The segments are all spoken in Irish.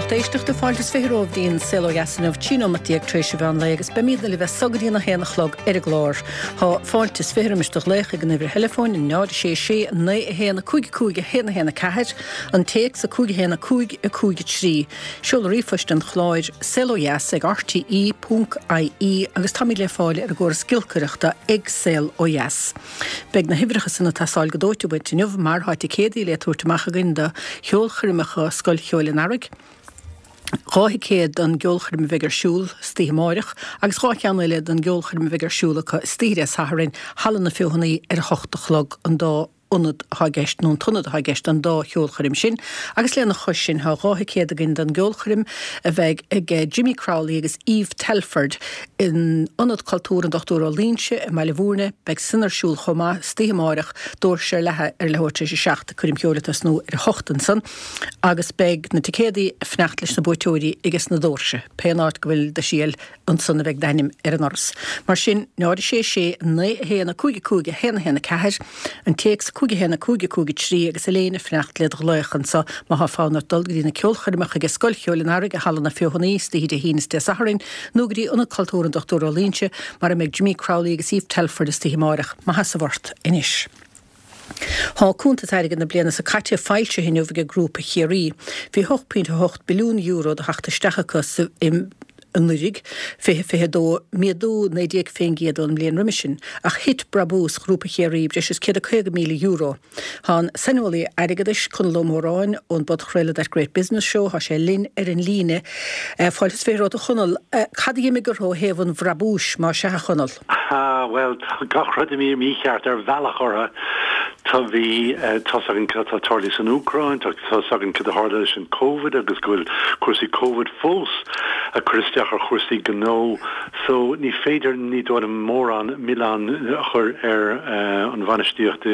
lucht éisteachta, fáilte is 20 romhaibh dtí'n Saol Ó Dheas inniu, 13 nóimeat tar éis an mheán lae agus beimídne libh as so go dtí'n 1 a chlog ar an gclár. Thá fáilte is 20 roimis do ghlaoch ag an uimhir theileafóin, 0 6 6 9 1 5 5 1 1 4, an téacs 5 1 5 5 3, seoladh ríomhphoist an chláir, saolodheas ag rte ponc ie agus táimid le fáil ar an gcóras giolcaireachta ag Saol Ó Dheas. Beidh na huimhreacha san ag teastáil go dóite uait inniu mar thá ticéadaí le tabhairt amach againn do cheolchoirmeacha Scoil Cheoil an Earraigh, 2 thicéad don gceolchoirm a bheidh ar siúl istoíche amáireach agus 2 cheann eile don gceolchoirm a bheidh ar siúl acu istoíche Dé Sathairn, Halla na Feothanaí ar a hocht a chlog an dá ionad atá i gceist, nó an t-ionad atá i gceist don dá cheolchoirm sin, agus lena chois sin tá 2 thicéad againn don gceolchoirm a bheidh ag Jimmy Crowley agus Eve Telford in Ionad Cultúir an Dr Ó Loingsigh i mBaile Bhúirne. Beidh san ar siúl chomh maith istoíche amáireach, doirse ar leathadh ar leathuair tar éis a 7, coirm cheoil ag tosnú ar a hocht ansan, agus beidh na ticéadaí ag fanacht leis na buaiteoirí ages na doirse, pé an áit go bhfuil do sheal. Ansan a bheidh d'ainm ar an ndoras. Mar sin, 0 6 6 9 1 5 5 1 1 4, an téacs 5 1 5 5 3 agus Elaine ag fanacht led ghlaoch anso má thá fonn ort dul go dtí na ceolchoirmeacha ag Scoil Cheoil an Earraigh i Halla na Feothanaí istoíche Dé hAoine is Dé Sathairn nó go dtí Ionad Cultúir an Dr Ó Loingsigh mar a mbeidh Jimmy Crowley agus Eve Telford istoíche amáireach. Maith sheasamh ort anois. Thá cuntas airgid na bliana so caite foilsithe inniu ag Grúpa Chiarraí. Bhí €8.8 billiún de theacht isteach acu sa anuraidh, 2022, méadú 19% ón mbliain roimis sin, ach thit brabús Ghrúpa Chiarraí breis is €150,000. Thá an saineolaí airgeadais, Conall Ó Móráin, ón bpodchraoladh That Great Business Show, thá sé linn ar an líne. Fáilte is 20 romhat a Chonaill. Cad a d'imigh orthu ó thaobh an bhrabúis, má sea, a Chonaill? Ah, bhuel, tá gach rud imithe mícheart ar bhealach orthu. Tá, bhí, tá's againn cad atá tarlaithe san Úcráin, tá, tá's againn cad a tharla leis an Covid agus go bhfuil cúrsaí Covid fós ag cur isteach ar chúrsaí gnó. So, ní féidir, ní dóigh liom, mórán milleán a chur ar an bhainistíocht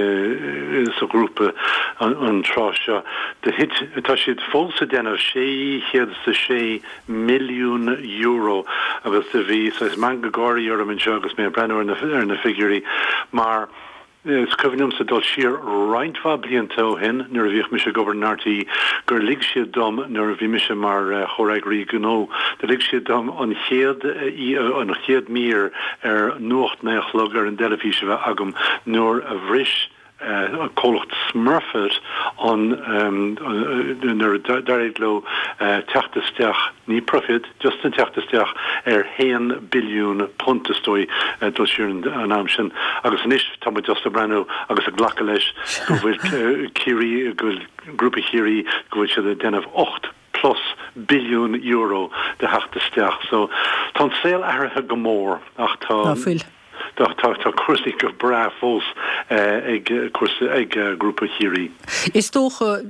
sa ghrúpa an tráth seo. Do thit, tá siad fós ag déanamh 606 milliún euro agus do bhí saghas meangadh gáirí orm anseo agus mé ag breathnú ar na ar na figiúirí mar is cuimhin liomsa dul siar roinnt mhaith blianta ó shin nuair a bhíodh mise ag obair in RTÉ gur lig siad dom nuair a bhí mise mar chomhfhreagraí gnó do lig siad dom an chéad an chéad mír ar Nuacht 9 a chlog ar an dteilifís a bheith agam nuair a bhris comhlacht Smurfit an nuair a d'éirigh leo teacht isteach, ní profit, just an teacht isteach ar haon billiún punt is dóigh dul siar an am sin agus anois tá muid just ag breathnú agus ag glacadh leis go bhfuil Ciarraí, go bhfuil Grúpa Chiarraí, go bhfuil siad ag déanamh 8 plus billiún euro de theacht isteach. So tá an saol athraithe go mór ach tá. Ná fuil. Tá tá cúrsaí go breá fós ag cúrsaí ag Grúpa Chiarraí. Is dócha,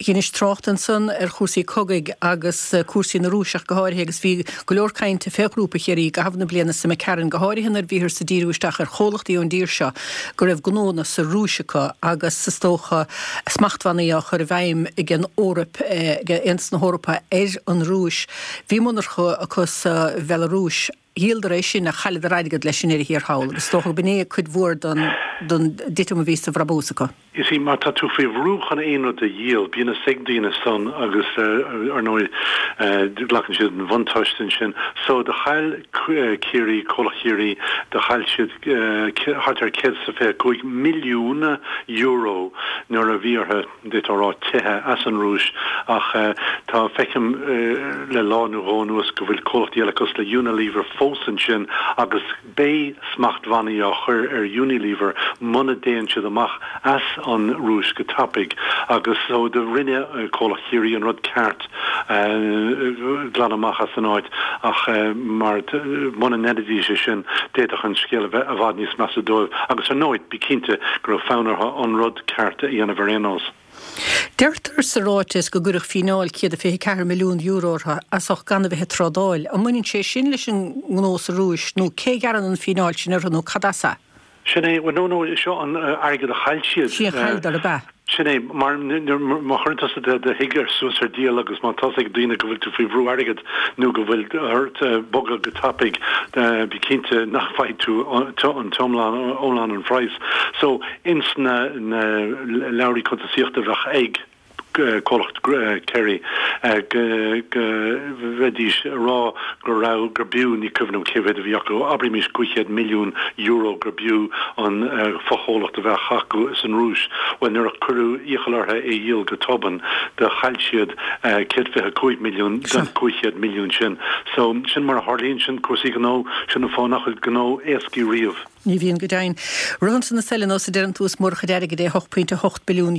dheinis trácht ansan ar chúrsaí cogaidh agus cúrsaí na Rúise ach go háirithe agus bhí go leor cainte fé Ghrúpa Chiarraí i gcaitheamh na bliana so imigh tharainn, go háirithe nuair a bhíothas ag díriú isteach ar chomhlachtaí ón dtír seo go raibh gnónna sa Rúis acu agus is dócha smachtbhannaí á chur i bhfeidhm ag an Eoraip, ag Aontas na hEorpa ar an Rúis. Bhí monarcha acu sa Bhealarúis. Dhíoladar é sin ach chailleadar airgead leis i ndeireadh thiar thall agus is dócha go b'in é cuid mhór den dtitim a bhí sa bhrabús acu. You see, má tá tú faoi bhrú chun aon rud a dhíol, bíonn fhios ag daoine san agus ar ndóigh glacann siad an bhuntáiste ansin. So do chaill Ciarraí, Comhlacht Chiarraí, do chaill siad thart ar €125 milliún nuair a bhí orthu, d'fhéadfá a rá, teitheadh as an Rúis ach tá, feicim le lá nó dhó anuas go bhfuil comhlachtaí eile cosúil le Unilever fós ansin agus beidh smachtbhannaí á chur ar Unilever muna dtéann siad amach as an Rúis go tapaidh agus so do rinne comhlacht Chiarraí an rud ceart glanadh amach as an áit ach mar muna ndéanfaidís é sin d'fhéadfadh an scéal a bheith i bhfad níos measa dóibh agus ar ndóigh bí cinnte go raibh fonn orthu an rud ceart a dhéanamh ar aon nós. Deirtear sa ráiteas go gcuireadh fíneáil €124 milliún orthu as ucht gan a bheith ag trádáil. An mbaineann sé sin leis an ngnó sa Rúis nó cé a ghearrann an fíneáil sin orthu nó cad as é? Sin é, bhuel no no, seo an airgead a chaill siad. Sin a chailleadar, ab ea? Sin é, mar má chuireann tusa do thigh ar suas ar díol agus má tá's ag daoine go bhfuil tú faoi bhrú airgid nó go bhfuil ort bogadh go tapaidh, bí cinnte nach bhfaighidh tú an t-iomlán, iomlán an phraghas. So, ins na leabhraí cuntasaíochta a bheadh ag. Comhlacht Kerry, go mbeidís ag rá go raibh, gur b'fhiú, ní cuimhin liom cé mhéad a bhí acu, abraimis €500 milliún gur b'fhiú an fochomhlacht a bheadh acu san Rúis. Bhuel, nuair a cuireadh iachall orthu é a dhíol go tobann, do chaill siad 125 milliún den 500 milliún sin. So, sin mar a tharlaíonn sin, cúrsaí gnó, sin an fáth nach bhfuil gnó éascaí riamh. Ní bhíonn go deimhin. Ritheann na súile nós a deireann tú is mórchuid airgid é €8.8 billiún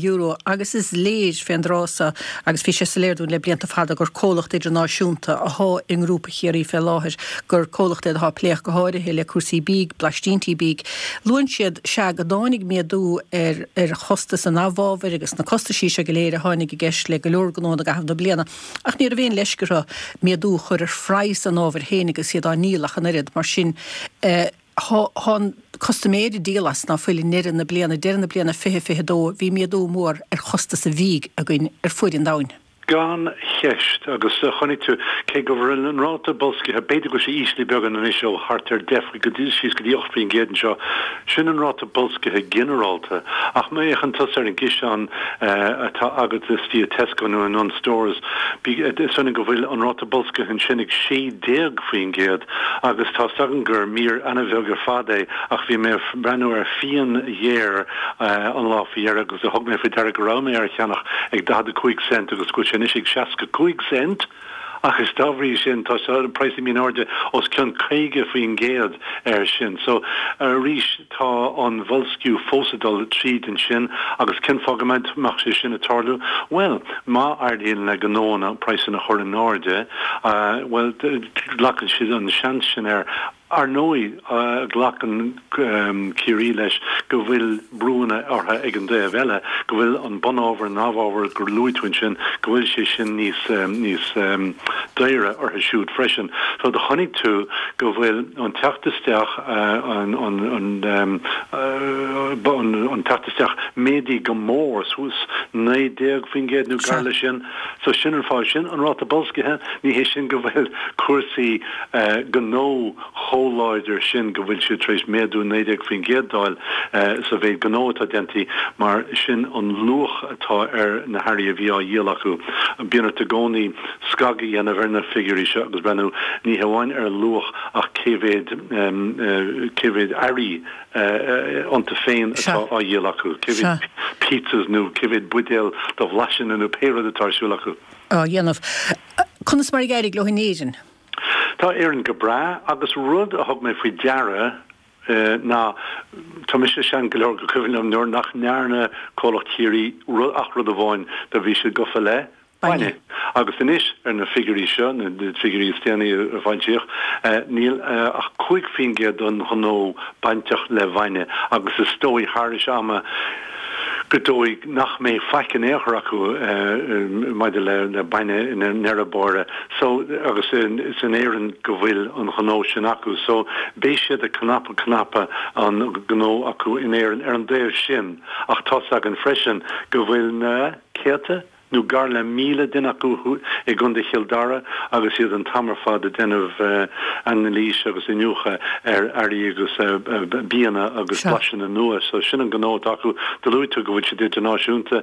agus is léir fén dtráth so agus bhí sé soiléir dúinn le blianta fada gur comhlacht idirnáisiúnta athá i nGrúpa Chiarraí fé láthair, gur comhlacht é athá ag plé ach go háirithe le cúrsaí bídh, blaistíntí bídh. Luann siad, sea, go dtáinig méadú ar ar chostas an amhábhair agus na costaisí seo go léir a tháinig i gceist le go leor gnónna i gcaitheamh na bliana. Ach ní raibh aon leisce orthu méadú a chur ar phraghas an ábhair féin agus iad á ndíol ach an oiread. Mar sin, Thá an custaiméir ag díol as ná fuil i ndeireadh na bliana, deireadh na bliana 2022, bhí méadú mór ar chostas an bhídh againn ar fuaid an domhain. Gan cheist, agus chonaic tú, cé go bhfuil an ráta boilscithe, b'fhéidir go bhfuil sé íslithe beagán anois ó thart ar 10 faoi go dtí síos go dtí 8% anseo, sin an ráta boilscithe ginearálta, ach má fhéachann tusa ar an gciseán atá agat istigh i Tesco nó i Dunnes Stores, is ionann go bhfuil an ráta boilscithe ansin ag 16%. Agus tá 's agam gur mír ana-bheag ar fad é, ach bhí mé ag breathnú ar fíon ghéar an lá faoi dheireadh agus thug mé faoi deara go raibh mé ar a cheannach ag 45 cent agus go bhfuil sé anois ag 65 cent! Agus dá bhrí sin tá an praghas imithe in airde os cionn 50% air sin. So, arís, tá an boilsciú fós ag dul tríd ansin agus cén fáth go mbeadh sé sin ag tarlú? Bhuel, má éiríonn le gnóanna praghsanna a chur in airde, bhuel, glacann siad an seans sin air. Ar ndóigh, glacann Ciarraí leis go bhfuil brúanna orthu ag an dtaobh eile, go bhfuil an bunábhar, an amhábhar gur luaigh tú ansin, go bhfuil sé sin níos, níos daoire orthu siúd freisin. So do chonaic tú go bhfuil an teacht isteach, an, an, an teacht isteach méadaithe go mór, suas 19% nó gar leis sin. So sin an fáth sin, an ráta boilscithe, ní hé sin go bhfuil cúrsaí gnó chomh láidir sin go bhfuil siad tar éis méadú 19% d'fháil sa mhéid gnó atá déanta mar sin an luach atá ar na hearraí a bhí á dhíol acu. Bíonn ort i gcónaí scagadh a dhéanamh ar na figiúirí seo agus breathnú ní hamháin ar an luach ach cé mhéad cé mhéad earraí iontu féin atá á dhíol acu, cé mhéad pizzas nó cé mhéad buidéal de bhlaiseanna nó pé rud atá ar siúl acu. á dhéanamh. Conas mar ag éirigh leo in Éirinn? Tá Éirinn go breá agus rud a thug mé faoi deara ná, tá mise sean go leor go cuimhin liom nuair nach ndearna comhlacht Chiarraí ach rud amháin, do bhí siad gofa le bainne. Agus anois ar na figiúirí seo, na figiúirí is déanaí a foilsíodh, níl ach 5% den ghnó bainteach le bainne agus is dóigh thairis ama go dóigh nach mbeidh faic in aon chor acu maidir le bainne i ndeireadh báire. So, agus is in Éirinn go bhfuil an gnó sin acu. So, beidh siad ag cnapadh cnapadh an gnó acu in Éirinn ar an dtaobh sin ach tá's againn freisin go bhfuil na céadta, nó gar le 1,000 duine acu i gContae Chill Dara agus iad an t-am ar fad ag déanamh anailís agus iniúchadh ar earraí agus bianna agus blaiseanna nua. So sin an gnó atá acu. Do luaigh tú go bhfuil siad idirnáisiúnta.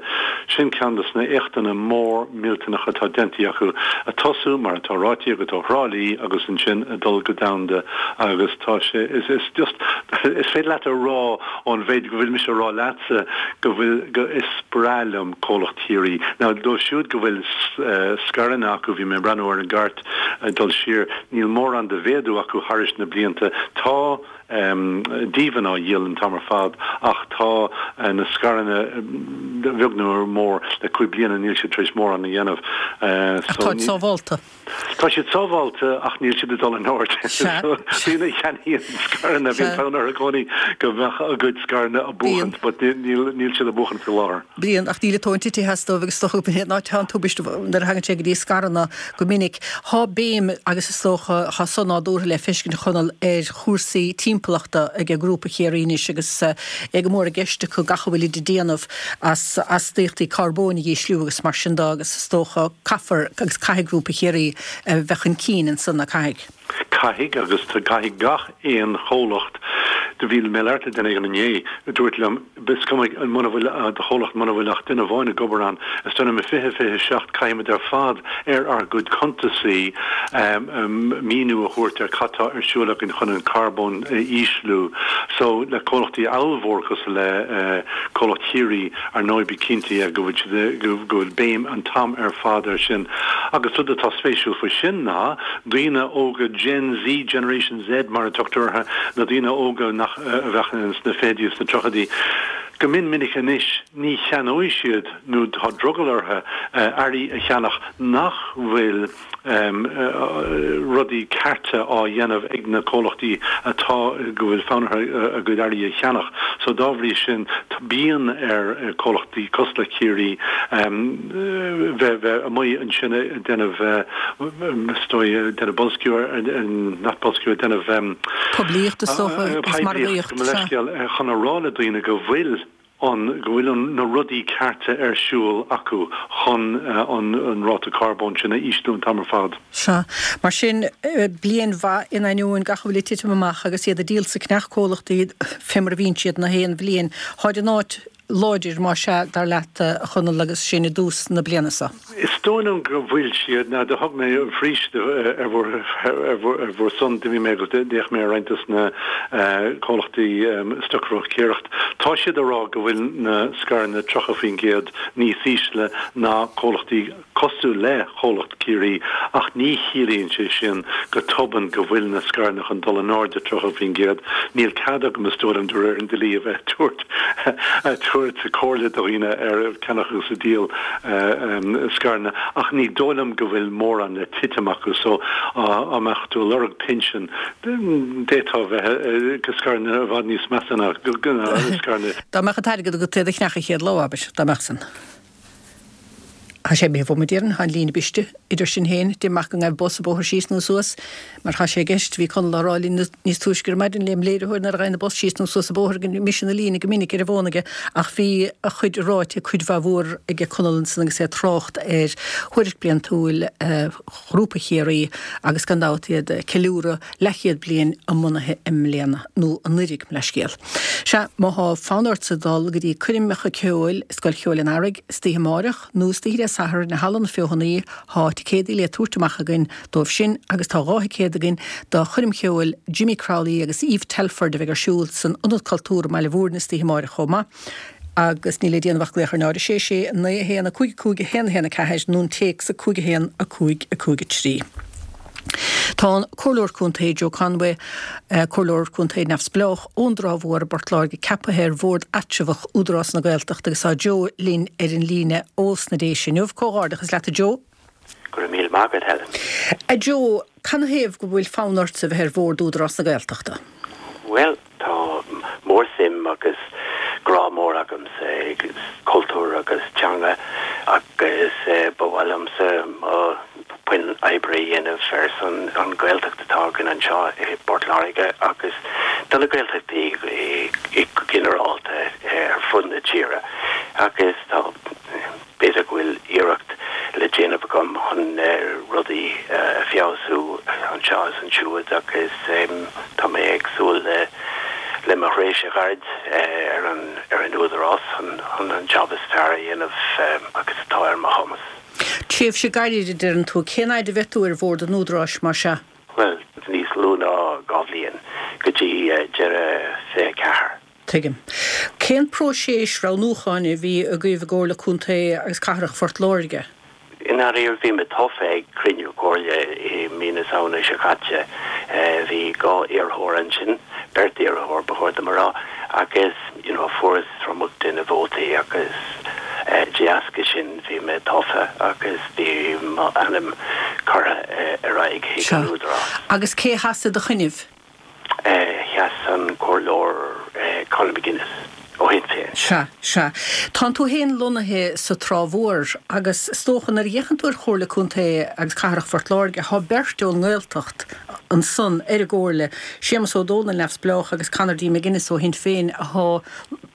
Sin ceann de na éachtanna mór millteanacha atá déanta acu. Ag tosú, mar atá ráite agat, ó Thrá Lí agus ansin ag dul go domhanda agus tá sé, is, is just, is féidir leat a rá ón mhéid go bhfuil mise a rá leatsa go bhfuil, go, is breá liom comhlacht Chiarraí. Now, dóibh siúd go bhfuil scaireanna acu, bhí mé ag breathnú ar an gcairt ag dul siar, níl mórán de mhéadú acu thairis na blianta. Tá díbhinn á dhíol an t-am ar fad ach tá na scaireanna beag nó mór le cúig bliana níl siad tar éis mórán a dhéanamh. Ach táid sábhálta. Tá siad sábháilte ach níl siad ag dul in airde. Daoine a cheannaíonn scaireanna, bíonn fonn orthu i gcónaí go mbeadh a gcuid scaireanna ag buachaint but níl siad ag buachaint faoi láthair. Bíonn, ach níl an tóin tite as dóibh agus is dócha gurb in áit atá an tubaiste nuair a thagann sé go dtí scaireanna go minic. Thá béim agus is dócha thá san nádúrtha le feiscint a Chonaill ar chúrsaí timpeallachta ag Grúpa Chiarraí anois agus é go mór i gceist acu gach a bhfuilid ag déanamh as astaíochtaí carbóin a dhísliú agus mar sin de agus is dócha caithfear agus caithfidh Grúpa Chiarraí a bheith chun cinn ansan, caithfidh? Caithfidh agus caithfidh gach aon chomhlacht. Do bhí mé ag labhairt le duine éigin inné a dúirt liom, is cuma muna bhfuil do chomhlacht, muna bhfuil ach duine amháin ag obair ann, is dóigh liom i 2027 caithfimid ar fad ar ár gcuid cuntasaí míniú a thabhairt ar cad tá ar siúl againn chun an carbón a ísliú. So le comhlachtaí ollmhór cosúil le comhlacht Chiarraí, ar ndóigh bí cinnte go bhfuil siad, go bhfuil béim an t-am ar fad air sin. Agus rud atá spéisiúil faoi sin ná daoine óga Gen Z, Generation Z mar a tugtar orthu, na daoine óga nach, a bheadh sna fichidí is sna tríochaidí, go mion minic anois ní cheannóidh siad nó tá drogall orthu earraí a cheannach nach bhfuil rudaí cearta á dhéanamh ag na comhlachtaí atá, go bhfuil fonn orthu a gcuid earraí a cheannach. So dá bhrí sin bíonn ar comhlachtaí cosúil le Ciarraí bheith bheith amuigh ansin ag déanamh is dóigh ag déanamh boilsciú ar, not boilsciú, ag déanamh. Poiblíocht is dócha agus margaíocht, sea. Leithscéal, chun a rá le daoine go bhfuil an, go bhfuil an, na rudaí cearta ar siúl acu chun an, an ráta carbóin sin a ísliú an t-am ar fad. Sea. Mar sin, bliain mhaith in ainneoin gach a bhfuil ag titim amach agus iad ag díol sa cneach-comhlachtaí fé mar a bhíonn siad na haon bhliain. Tháid in áit láidir, más ea, dar leat, a Chonaill, agus sinn i dtús na bliana seo? Is dóigh liom go bhfuil siad. Now, do thug mé arís ar bhur, ar bhur son, d'imigh mé agus d'fhéach mé ar roinnt dos na comhlachtaí stocbhróicéireacht. Tá siad ag rá go bhfuil na scaireanna 30% níos ísle ná comhlachtaí cosúil le comhlacht Ciarraí ach ní chiallaíonn sé sin go tobann go bhfuil na scaireanna chun dul in airde 30%. Níl cead agam is dóigh liom de réir an dlí a bheith ag tabhairt comhairle do dhaoine ar ceannach agus ag díol scaireanna ach ní dóigh liom go bhfuil mórán le titim acu so dá mbeadh tú ag lorg pinsean d'fhéadfá bheith ag scaireanna i bhfad níos measa ná scaireanna. Dá mbeadh an t-airgead agat iad a cheannach an chéad lá, abair, dá mbeadh san. Tá sé imithe uaim, a déarfainn, tá an líne briste idir sinn féin, deinim amach go ngaibh bus an bóthar síos nó suas, mar tá sé i gceist, bhí Conall á rá linn níos túisce ar maidin lem léiritheoir nuair a ghaibheann an bus síos nó suas an bóthar go mbriseann an líne go minic ar an bhfón aige ach bhí a chuid ráite cuid mhaith mhór aige Conall ansan agus é ag trácht ar thuairisc bliantúil Ghrúpa Chiarraí agus gan dabht iad ag ceiliúradh leathchéad bliain a mbunaithe i mbliana, nó anuiridh, mo leithscéal. Sea, má thá fonn ortsa dul go dtí coirmeacha ceoil i Scoil Cheoil an Earraigh istoíche amáireach nó istoíche Dé Sathairn i Halla na Feothanaí, thá ticéadaí le tabhairt amach againn dóibh sin agus tá 2 thicéad againn do choirm cheoil Jimmy Crowley agus Eve Telford a bheidh ar siúl san Ionad Cultúir i mBaile Bhúirne istoíche amáireach chomh maith. Agus níl le déanamh ach glaoch ar 0 6 6 9 1 5 5 1 1 4 nó an téacs 5 1 5 5 3. Tá an Comhairleoir Contae Joe Conway, Comhairleoir Contae neamhspleách ón dTrá Mhór i bPort Láirge ceaptha ar Bhord Eatramhach Údarás na Gaeltachta agus tá Joe linn ar an líne ós na Déise inniu. Comhghairdeachas leat a Joe. Go raibh míle maith agat, Helen. A Joe, canathaobh go bhfuil fonn ortsa bheith ar Bhord Údarás na Gaeltachta? Bhuel, tá mór-suim agus grá mór agamsa ag cultúr agus teanga agus ba mhaith liomsa mo puinn oibre a dhéanamh ar son an Ghaeltacht atá againn anseo i bPort Láirge agus do na Gaeltachtaí go ginearálta ar fud na tíre agus tá B'fhéidir go bhfuil iarracht le déanamh agam chun rudaí a feabhsú anseo is ansiúd agus tá mé ag súil le mo thréimhse ghairid ar an ar an Údarás chun an job is fearr a dhéanamh agus atá ar mo chumas. Tréimhse gairid a deireann tú. Cén fhaid a bheidh tú ar bhord an Údaráis mar sea? Bhuel, níos lú ná 2 bhliain, go dtí deireadh 24. Tuigim. Cén próiseas roghnúcháin a bhí agaibh i gComhairle Contae agus Cathrach Phort Láirge? I ndáiríre, bhí mé tofa ag cruinniú comhairle i mí na Samhna seo caite. Bhí 2 iarrthóir ansin, beirt iarrthóir ba chóir dom a rá, agus you know fuaireas tromlach de na vótaí agus de dheasca sin bhí mé tofa agus bhí m'ainm curtha ar aghaidh chuig an Údarás. Agus cé a sheas i do choinnibh? Sheas an Comhairleoir Conor McGuinness ó Shinn Féin. Sea, sea. Tánn tú féin lonnaithe sa Trá Mhór agus is dócha nuair a fhéachann tú ar Chomhairle Contae agus Cathrach Phort Láirge, thá beirt ón nGaeltacht ansan ar an gComhairle, Séamus Ó Dónaill, Neamhspleách, agus Conor D. McGuinness ó Shinn Féin athá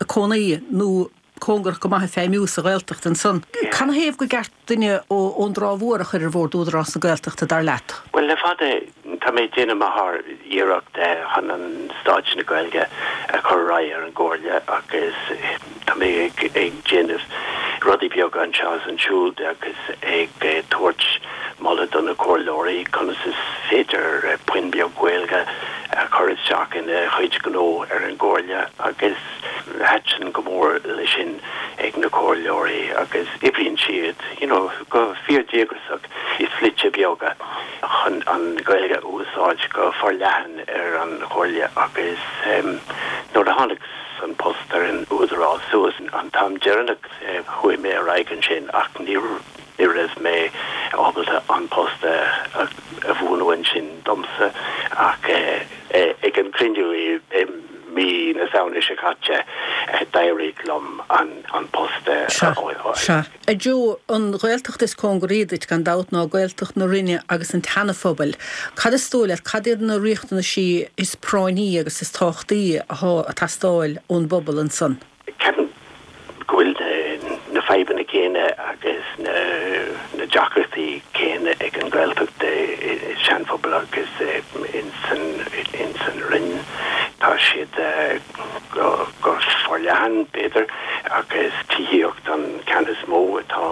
ag cónaí nó cóngarach go maith ag feidhmiú sa Ghaeltacht ansan. Canathaobh go gceart duine ón dTrá Mhór a chur ar Bhord Údarás na Gaeltachta, dar leat? Bhuel, le fada. Tá mé ag déanamh mo shár-iarracht chun an staid na Gaeilge a chur ar aghaidh ar an gComhairle agus tá mé ag déanamh rudaí beaga anseo is ansiúd agus ag tabhairt moladh do na comhairleoirí conas is féidir puinn beag Gaeilge a chur isteach ina chuid gnó ar an gComhairle agus thaitin go mór leis sin ag na comhairleoirí agus oibríonn siad you know go fíor-díograiseach i slite beaga chun an Ghaeilge a úsáid go forleathan ar an Chomhairle agus nuair a tháinig an post ar an Údarás suas an t-am deireanach chuaigh mé ar aghaidh ansin ach ní raibh mé ábalta an post a bhuanú ansin domsa ach ag an cruinniú i mí na Samhna seo caite d'éirigh liom an post a fháil. A Joe, an Ghaeltacht is cóngaraí duit gan dabht ná Gaeltacht na Rinne agus an tSeana-Phobail. Cad is dóigh leat, cad iad na riachtanaisí is práinní agus is tábhachtaí athá ag teastáil ón bpobal ansan? Ceapaim go bhfuil na fadhbanna céanna agus na deacrachtaí céanna ag an Ghaeltacht i Sean-Phobal agus ins an Rinn. Tá siad go forleathan, b'fhéidir, agus tithíocht an ceann is mó atá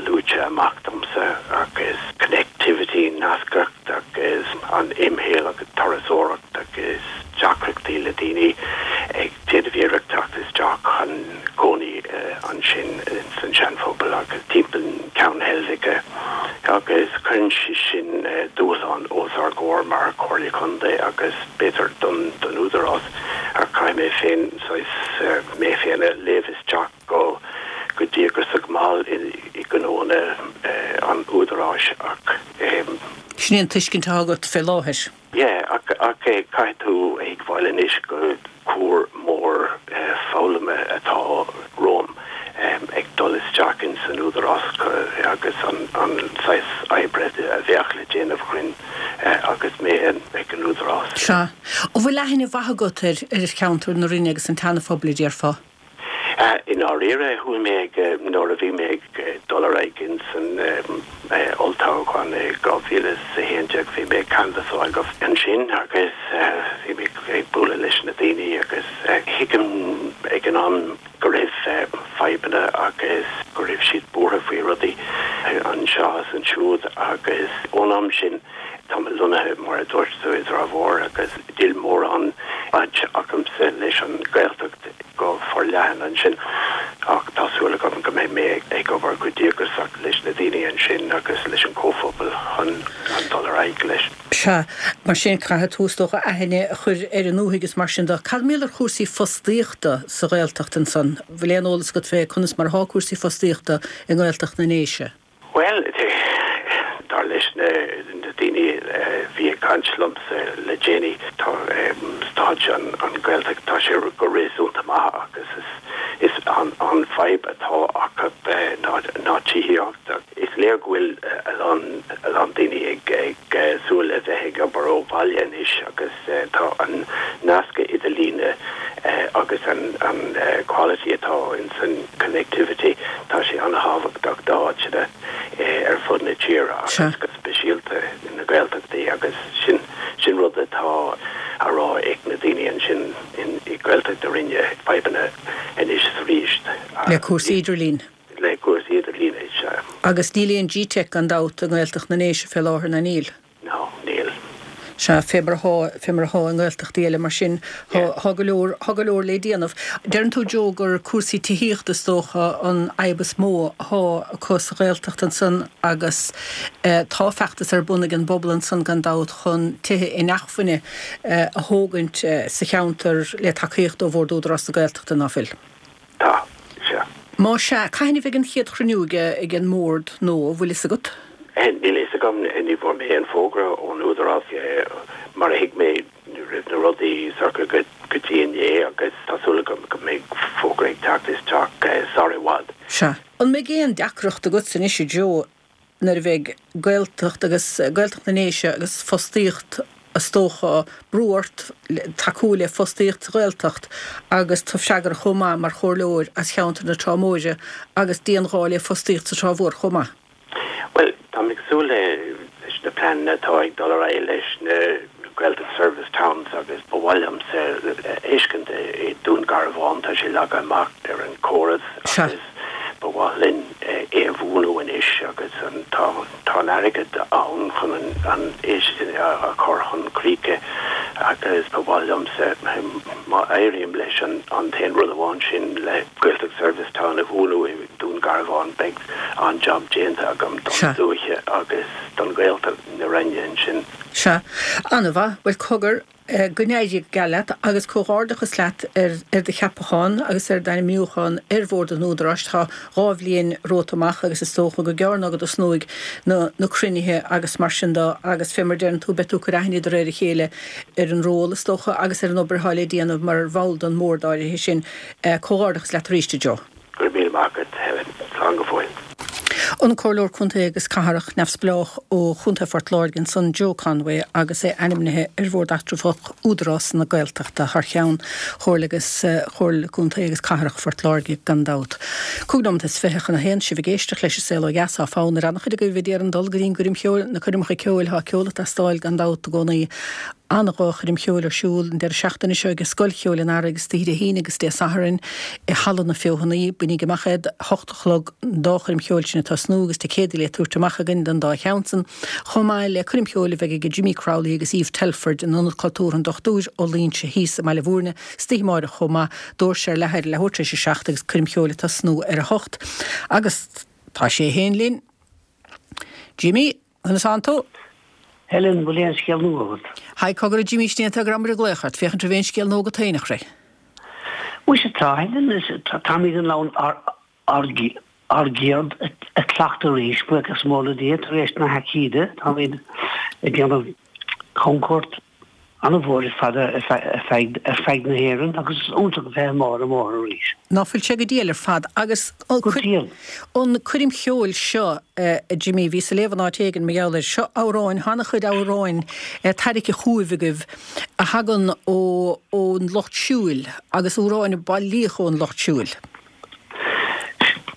luaite amach domsa, agus connectivity, nascacht agus an imshaol agus turasóireacht agus deacrachtaí le daoine ag déanamh iarracht teacht isteach chun cónaí ansin san Seanphobal agus timpeall Ceann Heilbhice agus cuireann sé sin dúshlán os ár gcomhair mar Chomhairle Contae agus b'fhéidir don Údarás ach caithfidh mé féin saghas mé féin a léamh isteach go go díograiseach mall i ngnóanna an Údaráis ach. Sin é an tuiscint atá agat fé láthair. Yeah, ach ach caithfidh tú a thuigbheáil anois go cuar mór foghlama atá romham ag dul isteach ins an Údarás agus an saghas oibre a bheadh le déanamh againn agus mé ag an Údarás. Sea. An bhfuil aithne mhaith agat ar cheantar na Rinne agus an tSeana-Phobail, a déarfá? I ndáiríre, chuaigh mé ag, nuair a bhí mé ag dul ar aghaidh ins an olltoghchán i 2011, bhí mé ag canbhasáil go ansin agus bhí mé ag bualadh leis na daoine agus thuigim ag an am go raibh fadhbanna agus go raibh siad buartha faoi rudaí anseo is ansiúd agus ón am sin Tá mé lonnaithe, mar a dúirt tú, i dTrá Mhór agus níl mórán baint agamsa leis an Ghaeltacht go forleathan ansin ach tá súil agam go mbeidh mé ag obair go díograiseach leis na daoine ansin agus leis an gcomhphobal chun dul ar aghaidh leis. Sea, mar sin caithfidh tú, is dócha, aithne a chur ar an ndúthaigh is mar sin de. Cad mar gheall ar chúrsaí fostaíochta sa Ghaeltacht ansan? Bhfuil aon eolas agat fé conas mar atá cúrsaí fostaíochta i nGaeltacht na nDéise? Bhuel, dar leis na daoine a bhí ag caint liomsa le déanaí, tá staid an Ghaeltacht, tá sé go réasúnta maith agus is an fadhb atá acu ná tithíocht. Is léir go bhfuil a lán a lán daoine ag súil le bheith ag obair ó bhaile anois agus tá an nasc idirlíne agus an quality atá ins an connectivity, tá sé an-thábhachtach d'áiteanna ar fud na tíre agus go speisialta na Gaeltachtaí agus sin sin rud atá á rá ag na daoine ansin i Gaeltacht na Rinne, fadhbanna anois is arís. Le cúrsaí idirlín. Le cúrsaí idirlín, sea. Agus níl aon gteic gan dabht i nGaeltacht na nDéise fé láthair, ná níl? No, níl. Sea, fé mar athá, fé mar athá i nGaeltachtaí eile mar sin, thá, thá go leor, thá go leor lé déanamh. Deireann tú, Joe, gur cúrsaí tithíochta is dócha an fhadhb is mó athá acu sa Ghaeltacht ansan agus tá feachtas ar bun ag an bpobal ansan gan dabht chun tithe inacmhainne a thógaint sa cheantar le tacaíocht ó Bhord Údarás na Gaeltachta, ná fuil? Tá, sea. Má sea, cathain a bheidh an chéad chruinniú ag an mBord nó an bhfuil fhios agat? Níl fhios agam, ní bhfuair mé aon fógra ón Údarás. Mar a thuig mé, ní raibh na rudaí socair go dtí inné agus tá súil agam go mbeidh fógra ag teacht isteach sar i bhfad. Sea. An mbeidh aon deacracht agatsa anois, a Joe, nuair a bheidh Gaeltacht agus Gaeltacht na nDéise agus fostaíocht is dócha, brú ort tacú le fostaíocht sa Ghaeltacht agus tú freagrach chomh maith mar chomhairleoir as cheantar na Trá Móire agus dianghá le fostaíocht sa Trá Mhór chomh maith. Bhuel, táim ag súil leis. na pleananna atá ag dul ar aghaidh leis na Gaeltacht Service Towns agus ba mhaith liomsa a fheiscint i Dún Garbhán, tá sé leagtha amach ar an córas agus ba mhaith linn é a bhuanú anois agus an tá tá an airgead ann chun an é sin a chur chun críche agus ba mhaith liomsa má éirím leis an an t-aon rud amháin sin le Gaeltacht Service Town a bhuanú i Dún Garbhán beidh an-jab déanta agam don dúiche agus don Ghaeltacht na Rinne ansin. Sea. An-mhaith. Bhuel, cogar, go n-éirí go geal leat agus comhghairdeachas leat ar do cheapachán agus ar d'ainmniúchán ar Bhord an Údaráis. Tá 2 bhliain romhat amach agus is dócha gur gearr ná go dtosnóidh na cruinnithe agus mar sin de agus fé mar a deireann tú beidh tú ag cur aithne de réir a chéile ar an ról is dócha agus ar an obair atá le déanamh mar bhall den mBord áirithe sin. Comhghairdeachas leat arís, a Joe. Go raibh míle maith agat, Helen. Slán go fóill. An Comhairleoir Contae agus Cathrach Neamhspleách ó Chontae Phort Láirge ansan, Joe Conway, agus é ainmnithe ar Bhord Eatramhach Údarás na Gaeltachta thar cheann Chomhairle agus Chomhairle Contae agus Cathrach Phort Láirge gan dabht. 25 nóiméad chun a haon, sibh ag éisteacht leis an Saol Ó Dheas, tá fonn ar an-chuid agaibh a d'iarraidh dul go dtí an gcoirm cheoil, na coirmeacha ceoil, tá ceol ag teastáil gan dabht i gcónaí. An-dhá choirm cheoil ar siúl an deireadh seachtaine seo ag Scoil Cheoil an Earraigh istoíche Dé hAoine agus Dé Sathairn i Halla na Feothanaí. Bainigí amach iad, 8 a chlog an dá choirm cheoil sin ag tosnú agus ticéadaí le tabhairt amach againn don dá cheann san, chomh maith le coirm cheoil a bheidh ag Jimmy Crowley agus Eve Telford in Ionad Cultúrtha an Dochtúir Ó Loingsigh thíos i mBaile Bhúirne istoíche amáireach chomh maith. Doirse ar leathuair leathuair tar éis a 7 agus coirm cheoil ag tosnú ar a hocht. Agus tá sé féin linn. Jimmy. Conas tánn tú? Helen, bhfuil aon scéal nua agat? Haigh, cogar a Jimmy, sin é an fáth go rabhamar ag glaoch ort, féachaint raibh aon scéal nua agat féin, a chroí. Muise tá, Helen, táimid in ann ár gceird a chleachtadh arís, buíochas mór le Dia, tar éis na haicíde, táimid ag déanamh camchuairt an-mhór ar fad ar feadh na hÉireann agus is iontach a bheith amuigh ar an mbóthar arís. Ná fuil sé go diail ar fad agus Go diail. an coirm cheoil seo, a Jimmy, bhíos ag léamh in áit éigin mar gheall air seo, amhráin, tá an-chuid amhráin tarraicthe chugaibh agaibh a thagann ó ón lucht siúil agus amhráin a bailíodh ón lucht siúil.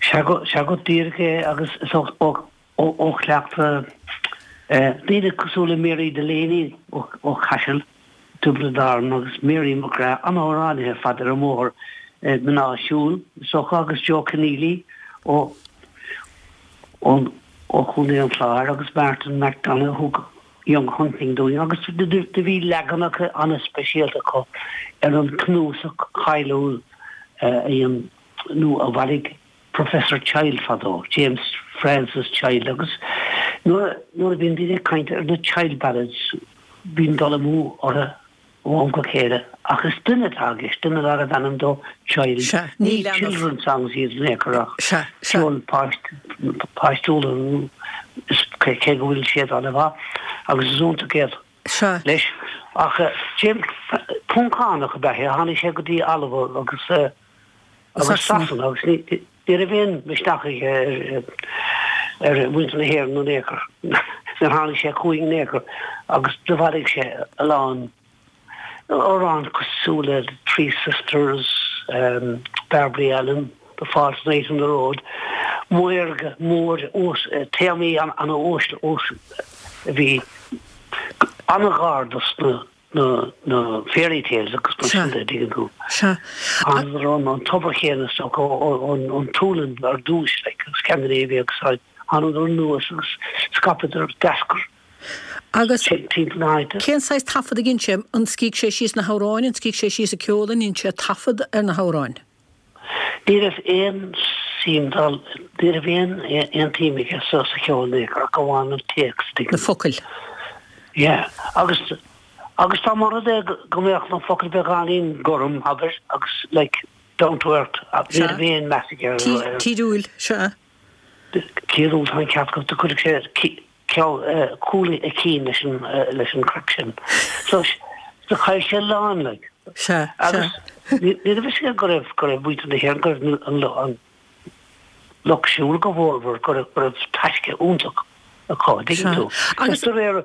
Sea go díreach é agus is ó Ó chleachtadh daoine cosúil le Mary Delaney ó Chaiseal, Tiobraid Árann agus Mary McGrath, an-amhránaithe ar fad ar an mbóthar, mná siúil is dócha, agus Joe Conneely ó Chontae an Chláir agus Martin McDonagh a thug Young Hunting dúinn agus do bhí leaganacha an-speisialta acu ar an cnuasach cáiliúil a dhein nó a bhailigh Professor Child fadó, James Francis Child, agus nuair a bhíonn daoine ag caint ar na Child Ballads bíonn dul amú orthu ó am go chéile ach is duine atá i gceist, duine darbh ainm dó Child. Sea, ní Ní children's songs iad in aon chor ach Sea, sea. ceol páistiúil cé go bhfuil siad an-mhaith agus is iontach iad. Sea. Leis. Ach James, Poncánach ab ea é, tháinig sé go dtí Alba agus agus Sasana agus ní raibh aon mhisneach aige ar mhuintir na hÉireann in aon chor. Níor tháinig sé chugainn in aon chor agus do bhailigh sé a lán amhrán cosúil le Three Sisters, Barbary Allen, The False Knight on the Road, maorga, mór, téamaí ana-uaisle a bhí an-ghar dos na na fairy tales agus mar sin de, dtuigeann tú. Sea. Thángadar ón an tobar chéanna is dócha, ón tSualainn ar dtús, like, Scandinavia agus thángadar anuas agus scaipeadar, d'eascair Agus timpeall na háite. cén saghas taifead a dhein sé? An scrígh sé síos na hamhráin, an scrígh sé síos an ceol, an ndein sé taifead ar na hamhráin? Ní raibh aon suim dá, ní raibh aon aon tsuim aige sa sa cheol in aon chor ach amháin an téacs, tuigeann Na focail. Yeah. Agus agus dá mba rud é go mbeadh na focail beagáinín gorm, abair, agus like down to earth, ní Sea. raibh aon meas aige ar ar. Tíriúil, sea. Tíriúil, tá an ceart agat, do chuirfeadh sé cúl a chinn leis an leis an craic sin. So do chaill sé a lán like. Sea, sea. Agus ní raibh fhios aige go raibh go raibh muintir na hÉireann, go raibh an an lucht siúil go mhórmhór, go raibh go raibh taisce iontach acu, an dtuigeann tú. Agus de réir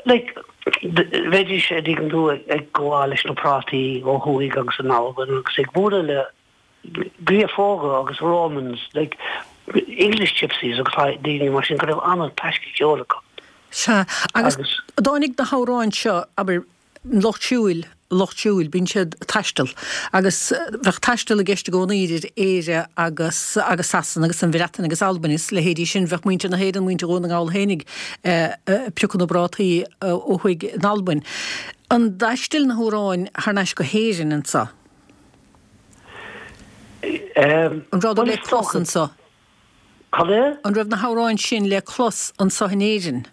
like bheidís, an dtuigeann tú, ag gabháil leis na prátaí ó thuaidh agus in Albain agus ag bualadh le Giofóga agus Romans, like English gypsies agus daoine mar sin go raibh an-taisce ceoil acu. Sea, agus dtáinig na hamhráin seo, abair, an lucht siúil, lucht siúil, bíonn siad ag taisteal agus bheadh taisteal i gceist i gcónaí idir Éire agus agus Sasana agus an Bhreatain agus Albain is leithéidí sin. Bheadh muintir na hÉireann, muintir Dhún na nGall fhéinig ag piocadh na bprátaí ó thuaidh in Albain. An dtaistil na hamhráin thar n-ais go hÉirinn anso? An rabhadar le clos anso? Cad é? An raibh na hamhráin sin le clos anso in Éirinn?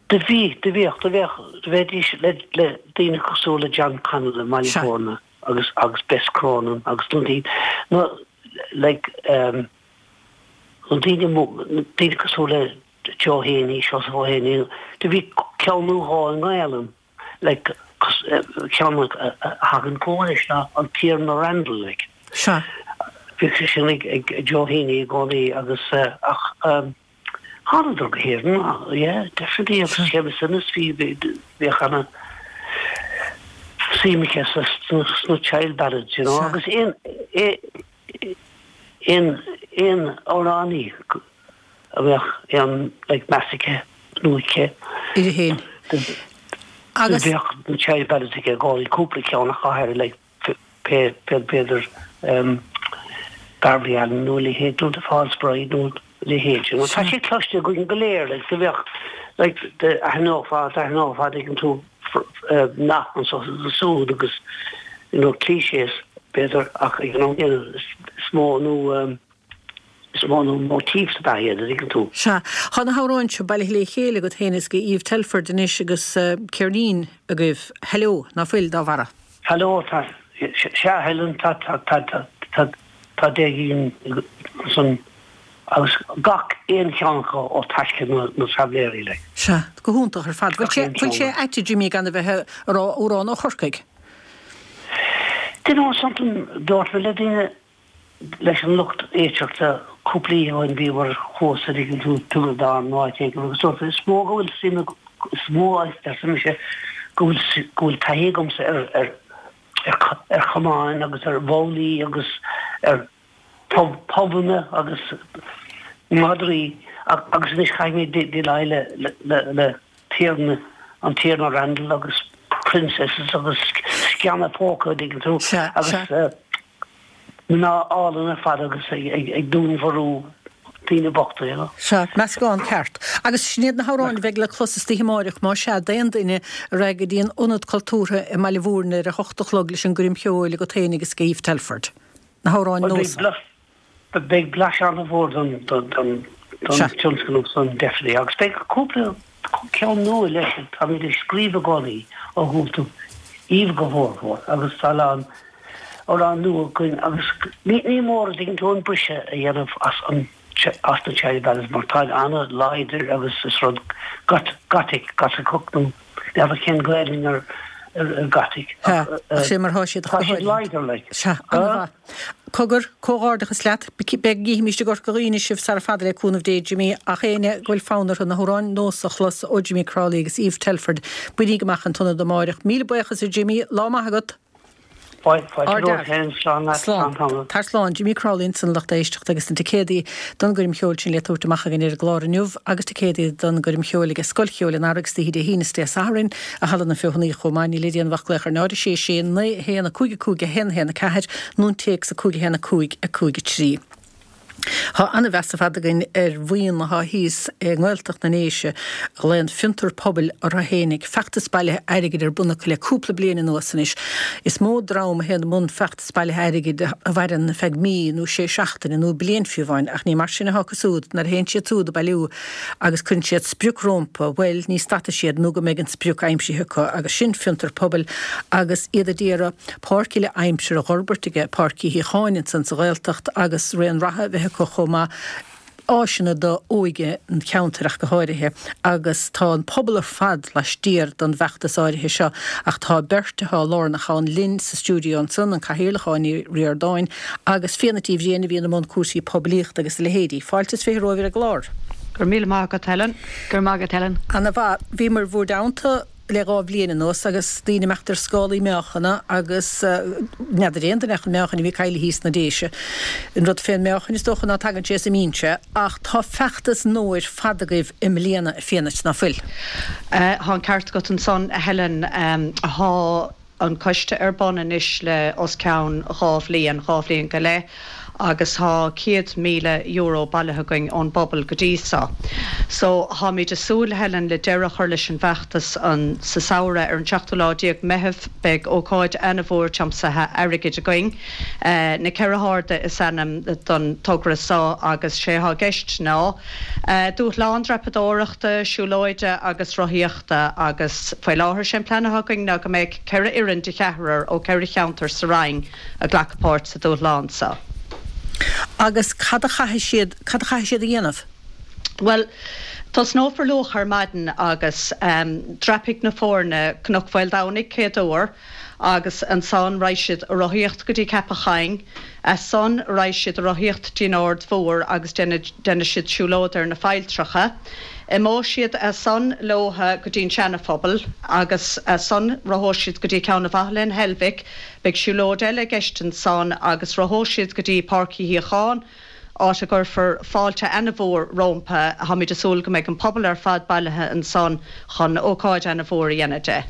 Do bhí, do bhíodh, do bheadh, do bheidís le, le daoine cosúil le John Connell i mBaile Bhúirne agus, agus Bess Cronin agus na daoine, na, like, ehm, na daoine mó, na daoine cosúil le Joe Heaney, Seosamh Ó hÉanaí, do bhí ceann nó dhó i nGaelainn. like, ceann a thagann chugam anois ná an Tiarna Randall, like. Sea. Bhíodh sé sin ag ag Joe Heaney i gcónaí agus ach thánadar go hÉirinn, yeah, definitely agus Séamus Ennis bhí bhíodh ana suim aige sa sna child ballads, you know, agus aon aon aon amhránaí a bheadh aon like meas aige nó aici. Uirthi féin. Agus. Bheadh na child ballads aige i gcónaí, cúpla ceann ach go háirithe like pé pé b'fhéidir um Beverly Allen nó a leithéid nó The False Bride nó a leithéid you know. Tá sé cloiste againn go léir like do bheadh like d'aithneofá d'aithneofá dtuigeann tú nath anso is ansúd agus you know clichés b'fhéidir ach ag an am céanna is mó nó um Is mó nó motifs ab ea iad, a dtuigeann tú. Sea. Tá na hamhráin seo bailithe le chéile agat féin is ag Eve Telford anois agus ceirnín agaibh, Hello, ná fuil, dá bharra? Hello, tá. Sea, Helen, tá, tá, tá, tá, tá, tá deich gcinn ansan agus gach aon cheann acu ó taisce na, na traibhléirí, like. Sea, go hiontach ar fad. Bhfuil sé, bhfuil sé ait, a Jimmy, gan a bheith ag rá amhrán ó Chorcaigh? Do you know something, dúirt mé le daoine, leis an lucht éisteachta cúpla oíche ó shin bhíomar thuas a dtuigeann tú Tiobraid Árann nó áit éigin agus dúirt is mó go bhfuil suim is mó arsa mise go bhfuil go bhfuil taithí agamsa ar ar ar ar chamáin agus ar bhabhlaí agus ar pub pubanna agus madraí agus anois chaithfidh mé déileáil le le le Tiarna an Tiarna Randall agus princesses agus sceana póca a dtuigeann tú agus Mná álainn ar fad agus ag dúnmharú daoine bochta, you know. Sea, meascán ceart. Agus sin iad na hamhráin a bheidh le clos istoíche amáireach, más ea, d'aon duine a raghaidh go dtí an Ionad Cultúrtha i mBaile Bhúirne ar a hocht a chlog leis an gcoirm cheoil agat féin agus ag Eve Telford. Na hamhráin nua. Beidh blaiseadh an-mhór don tionscnamh san, definitely. Agus beidh cúpla ceann nua leis, táimid ag scríobh i gcónaí ó thús, Eve go mhórmhór, agus tá a lán amhrán nua againn agus ní mór a dtuigeann tú an briseadh a dhéanamh as an as na Child Ballads mar táid an-láidir agus is rud gothic, gotaiceach nó n'fheadar cén Gaelainn ar gothic ach sé mar thá siad tá siad láidir like. Sea, an-mhaith. Cogar, comhghairdeachas leat. Beidh, gcífimíst i gCorca Dhuibhne sibh sara fada le cúnamh Dé, Jimmy, ach éinne go bhfuil fonn orthu na hamhráin nós a chlos ó Jimmy Crowley agus Eve Telford, bainigí amach an t-ionad amáireach. Míle buíochas a Jimmy, lá maith agat! Slán. Tar slán. Jimmy Crowley ansan lucht éisteachta agus na ticéadaí don gcoirm cheoil sin le tabhairt amach againn ar an gclár inniu agus ticéadaí don gcoirm cheoil aige Scoil Cheoil an Earraigh istoíche Dé hAoine is Dé Sathairn i Halla na Feothanaí chomh maith. Níl le déanamh ach glaoch ar 0 6 6 9 1 5 5 1 1 4 nó an téacs 5 1 5 5 3. Tá an-mheas ar fad againn ar bhuíon atá thíos i nGaeltacht na nDéise a ghlaonn Fiontar Pobail orthu fhéinig. Feachtas bailithe airgid ar bun acu le cúpla bliain anuas anois. Is mó dream a théann i mbun feachtas bailithe airgid a mhaireann ar feadh mí nó sé seachtaine nó bliain fiú amháin ach ní mar sin atá acu súd nuair a théann siad súd ag bailiú agus cuireann siad sprioc rómpa, bhuel ní stadfaidh siad nó go mbeidh an sprioc aimsithe acu agus sin Fiontar Pobail agus iad a d'iarraidh páirc uile aimsire a dh'fhorbairt aige Páirc Uí Shíocháin ansan sa Ghaeltacht agus raon reatha a bheith acu chomh maith, áiseanna do óige an cheantair ach go háirithe agus tá an pobal ar fad laistiar don bhfeachtas áirithe seo ach tá beirt atá lárnach ann linn sa stiúideo ansan, an Cathaoirleach Áine Ní Ríordáin agus Fíona Tí Bhriain a bhíonn i mbun cúrsaí poiblíochta agus a leithéidí. Fáilte is 20 romhaibh ar an gclár. Go raibh míle maith agat Helen. Go raibh maith agat Helen. Ana mhaith. Bhíomar i bhúr dteannta. le 2 bhliain anuas agus daoine imeacht ar scálaí meáchana agus n'fheadar aon duine ach an meáchan a bhí caillte thíos sna Déise. An rud fén meáchan is dócha ná tagann sé is imíonn sé ach tá feachtas nua ar fad agaibh i mbliana a Fiadhnait, ná fuil? Tá an ceart agat ansan a Helen. Tá. an coiste ar bun anois le os cionn 2 bhliain, 2 bhliain go leith, agus thá €100,000 bailithe againn ón bpobal go dtí so. So, tháimid a súil, Helen, le deireadh a chur leis an bhfeachtas an sa samhradh. Ar an seachtú lá déag Meitheamh beidh ócáid ana-mhór tiomsaithe airgid againn. Na Ceithre hArda is ainm don togra so agus sé thá i gceist ná dúshlán dreapadóireachta, siúlóide agus rothaíochta, agus faoi láthair sé an plean atá againn ná go mbeidh 4 fhoireann de cheathrar ó 4 cheantar sa Rinn ag glacadh páirt sa dúshlán seo. Agus cad a chaithfidh siad, cad a chaithfidh siad a dhéanamh? Bhuel, tosnófar luath ar maidin agus dreapfaidh na foirne Cnoc Mhaoldomhnaigh céad uair agus ansan raghaidh siad a rothaíocht go dtí Ceapach Choinn, as san raghaidh siad a rothaíocht dtí'n Aird Mhór agus déanfaidh siad siúlóid ar na failltreacha. Imeoidh siad as san leotha go dtí'n Seana-Phobal agus as san rothóidh siad go dtí Ceann an Bhaile in Heilbhic. Beidh siúlóid eile i gceist ansan agus rothóidh siad go dtí Páirc Uí Shíocháin, áit a gcuirfear fáilte ana-mhór rómpa. Táimid ag súil go mbeidh an pobal ar fad bailithe ansan chun ócáid ana-mhór a dhéanamh de.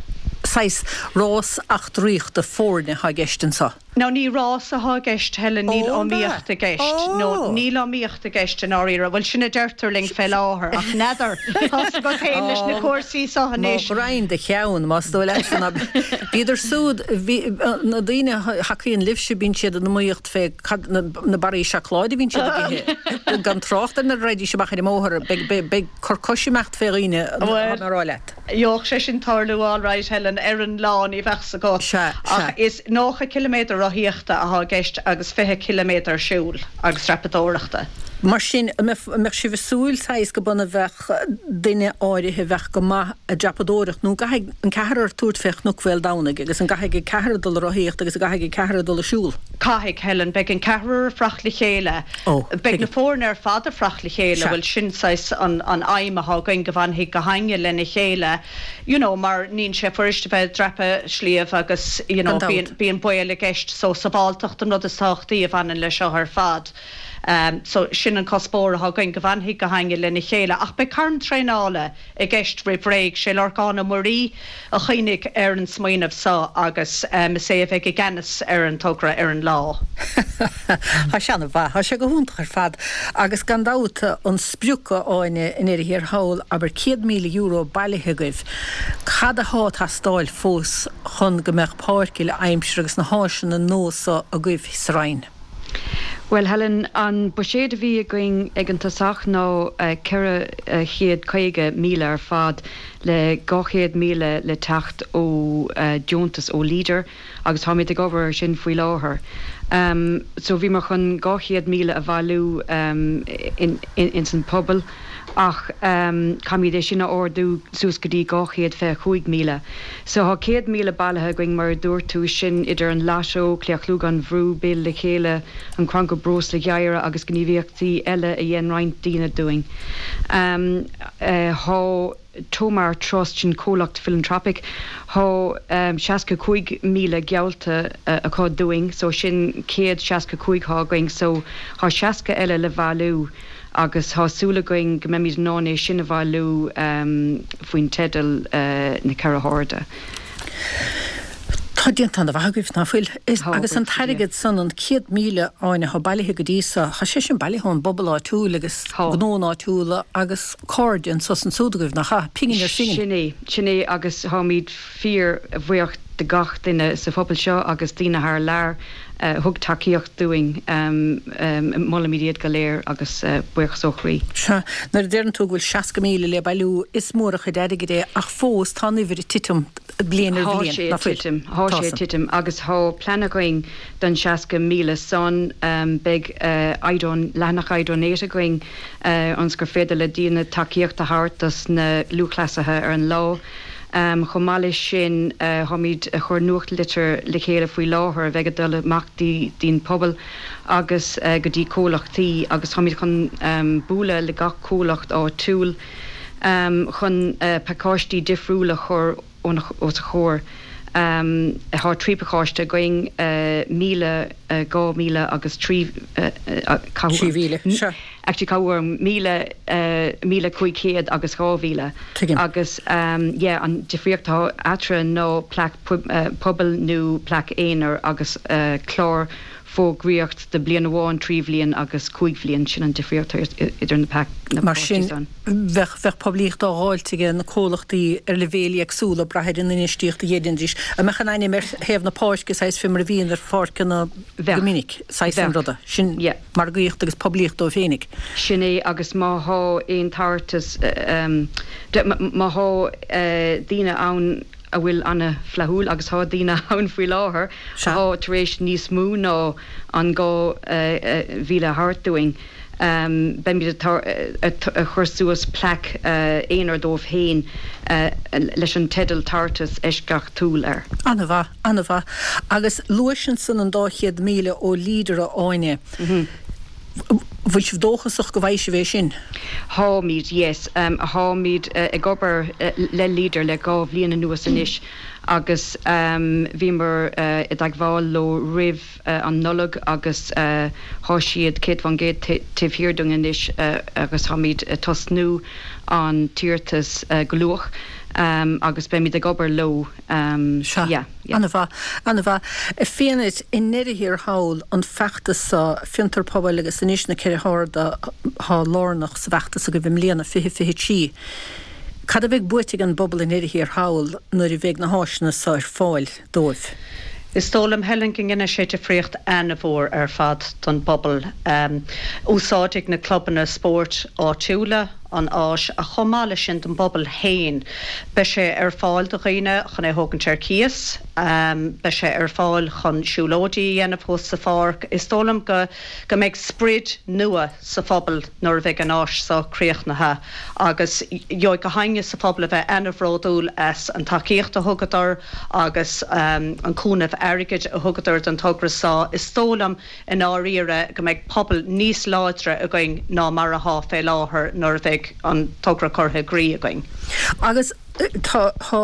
Saghas rás eachtraíochta foirne atá i gceist anso. No, ní rás athá i gceist, Helen, níl iomaíocht i gceist. No, níl iomaíocht i gceist i ndáiríre. Bhuel, sin a deirtear linn fé láthair, ach n'fheadar, tá's agat féin leis na cúrsaí so anois. Mo ghraidhin do cheann, más dóigh leatsa ná bhíodar súd, bhí, na daoine a thacaíonn libhse, bíonn siad in iomaíocht fé cad, na barraí seacláide a bhíonn siad ag ithe, gan trácht ar nuair a raghaidís amach ar an mbóthar, beidh, beidh, beidh cur cois imeacht fé dhaoine, tá mé a rá leat. Gheobhadh sé sin tarlú alright, Helen, ar an lá, ní bheadh 's agat. Sea, sea. Ach is 90 ciliméadar rothaíochta athá i gceist agus 20 ciliméadar siúil agus dreapadóireachta. Mar sin, an mbeadh sibh ag súil, saghas, go b'ionann a bheadh duine áirithe a bheadh go maith ag dreapadóireacht, nó an gcaithfidh an ceathrar tabhairt fé Chnoc Mhaoldomhnaigh agus an gcaithfidh an ceathrar dul ag rothaíocht agus an gcaithfidh an ceathrar dul ag siúl? Caithfidh, Helen. Beidh an ceathrar ag fuireacht le chéile. Ó, Beidh na tuigim. foirne ar fad ag fuireacht le chéile. Sea. Bhuel, sin saghas an aidhm athá againn, go bhfanfaidh gach éinne lena chéile, you know, mar níonn sé fuirist a bheith ag dreapadh sliabh agus, you know, Gan dabht. bíonn, bíonn baol i gceist. So, sabháltacht an rud is tábhachtaí a bhaineann le seo ar fad. So, sin an cuspóir athá againn, go bhfanfaidh gach éinne lena chéile. Ach beidh carn traenála i gceist roimh ré. Sé Lorcán Ó Muirí a chuimhnigh ar an smaoineamh so agus is é a bheidh i gceannas ar an togra ar an lá. Tá sé ana-mhaith. Tá sé go hiontach ar fad. Agus gan dabht an sprioc, a Áine, i ndeireadh thiar thall, abair €100,000 bailithe agaibh. Cad athá ag teastáil fós chun go mbeadh páirc uile aimsire agus na háiseanna nua so agaibh sa Rinn? Bhuel, Helen, an buiséad a bhí againn ag an tosach ná 450,000 ar fad, le 200,000 le teacht ó deontas ó Leader agus táimid ag obair air sin faoi láthair. So bhíomar chun 200,000 a bhailiú ins an pobal ach caithfimid é sin a ardú suas go dtí 225,000. So thá 100,000 bailithe againn mar a dúirt tú, sin idir an Lotto, Claochlú gan Bhrú, Build le Chéile, an Crannchur Breosla Gheimhridh agus gníomhaíochtaí eile a dhein roinnt daoine dúinn. Thá Tomar Trust, sin comhlacht philanthropic, thá 65,000 geallta acu dúinn so sin 165 thá againn so thá 60 eile le bhailiú agus thá súil againn go mbeimid in ann é sin a bhailiú faoin teideal Na Ceithre hArda. Tá déanta ana-mhaith agaibh, ná fuil? Tá, Agus an buíochas le Dia. t-airgead san, an 100,000, Áine, athá bailithe go dtí so, thá sé sin bailithe ón bpobal áitiúil agus Tá. gnóanna áitiúla agus cairde anso is ansúd agaibh, nach ea? Pingin ar phingin. Sin é, sin é agus táimid fíor bhuíoch de gach duine sa phobal seo agus daoine thar lear a thug tacaíocht dúinn. Molaimid iad go léir agus buíochas ó chroí. Sea, nuair a deireann tú go bhfuil 60,000 le bailiú, is mór an chuid airgid é ach fós tá an uimhir ag titim bliain ar Thá bhliain, sé ná ag fuil? titim, thá Tá sé ag san. titim agus thá plean againn don 60,000 san. Beidh iDon, leathanach iDonate againn ionas gur féidir le daoine tacaíocht a thabhairt dos na lúthchleasaithe ar an lá. Chomh maith leis sin, táimid ag cur nuachtlitir le chéile faoi láthair a bheidh ag dul amach dtí'n pobal agus go dtí comhlachtaí agus táimid chun bualadh le gach comhlacht áitiúil chun pacáistí difriúla a chur. os a chomhair. Tá 3 pacáiste againn, 1,000, 2,000 agus 3, 3,000, sea. Actually cabhair orm, 1,000, 1,500 agus 2,000. Tuigim. Agus yeah, an difríocht atá eatarthu ná plaic pobail nó plaic aonair agus clár fógraíocht do bliain amháin, 3 bhliain agus 5 bhliain. Sin an difríocht idir na pacáistí Mar sin, san. bheadh, bheadh poiblíocht á dháilt ag na comhlachtaí ar leibhéil éagsúla, ag brath ar an infheistíocht a dhéanfaidís. An mbeadh an ainm ar thaobh na páirce, saghas fé mar a bhíonn ar pháirceanna go Bheadh. minic, saghas an Bheadh. ruda. Sin Yeah. margaíocht agus poiblíocht dóibh féinig. Sin é, agus má thá aon tabhartas, má thá daoine ann a bhfuil ana-fhlaithiúil, agus thá daoine ann faoi láthair Sea. athá tar éis níos mó ná an 2,000 a thabhairt dúinn, beimid ag cur suas plaic aonair dóibh féin leis an teideal 'Tabhartas Eisceachtúil' air. Ana-mhaith. An-mhaith. Agus luais ansan an dá 100,000 ó Leader, a Áine. Bhfuil sibh dóchasach go bhfaighidh sibh é sin? Tháimid, yes. Tháimid ag obair le Leader le dhá bhliain anuas anois agus bhíomar i dteagmháil leo roimh an Nollaig agus thá siad 100% taobh thiar dúinn anois agus tháimid ag tosnú an t-iarratas go luath agus beimid ag obair leo. Sea. Yeah, yeah. An-mhaith, an-mhaith. A Fiadhnait, i ndeireadh thiar thall, an feachtas seo, Fiontar Pobail agus anois na Ceithre hArda athá lárnach sa bhfeachtas agaibh i mbliana, 2023. Cad a bheidh buaite ag an bpobal i ndeireadh thiar thall nuair a bheidh na háiseanna seo ar fáil dóibh? Is dóigh liom, Helen, go ndéanfaidh sé difríocht an-mhór ar fad don bpobal. Úsáidfidh na clubanna spóirt áitiúla, an áis ach chomh maith leis sin don bpobal féin. Beidh sé ar fáil do dhaoine chun é a thógaint ar cíos, beidh sé ar fáil chun siúlóidí a dhéanamh thuas sa pháirc. Is dóigh liom go go mbeidh sprid nua sa phobal nuair a bheidh an áis seo críochnaithe agus gheobhaidh gach éinne sa phobal a bheith ana-bhródúil as an tacaíocht a thugadar agus an cúnamh airgid a thugadar don togra seo. Is dóigh liom i ndáiríre, go mbeidh pobal níos láidre againn ná mar athá fé láthair nuair a bheidh an togra curtha i gcrích againn. Agus tá, tá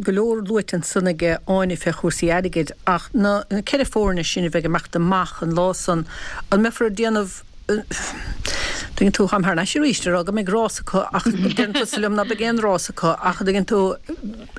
go leor luaite ansan aige Áine fé chúrsaí airgid ach na ceithre foirne sin a bheidh ag imeacht amach an lá san, an mbeifear ag déanamh, tuigeann tú, táim thar n-ais arís ag rá go mbeidh rás acu ach deireann tusa liom ná beidh aon rás acu ach tuigeann tú,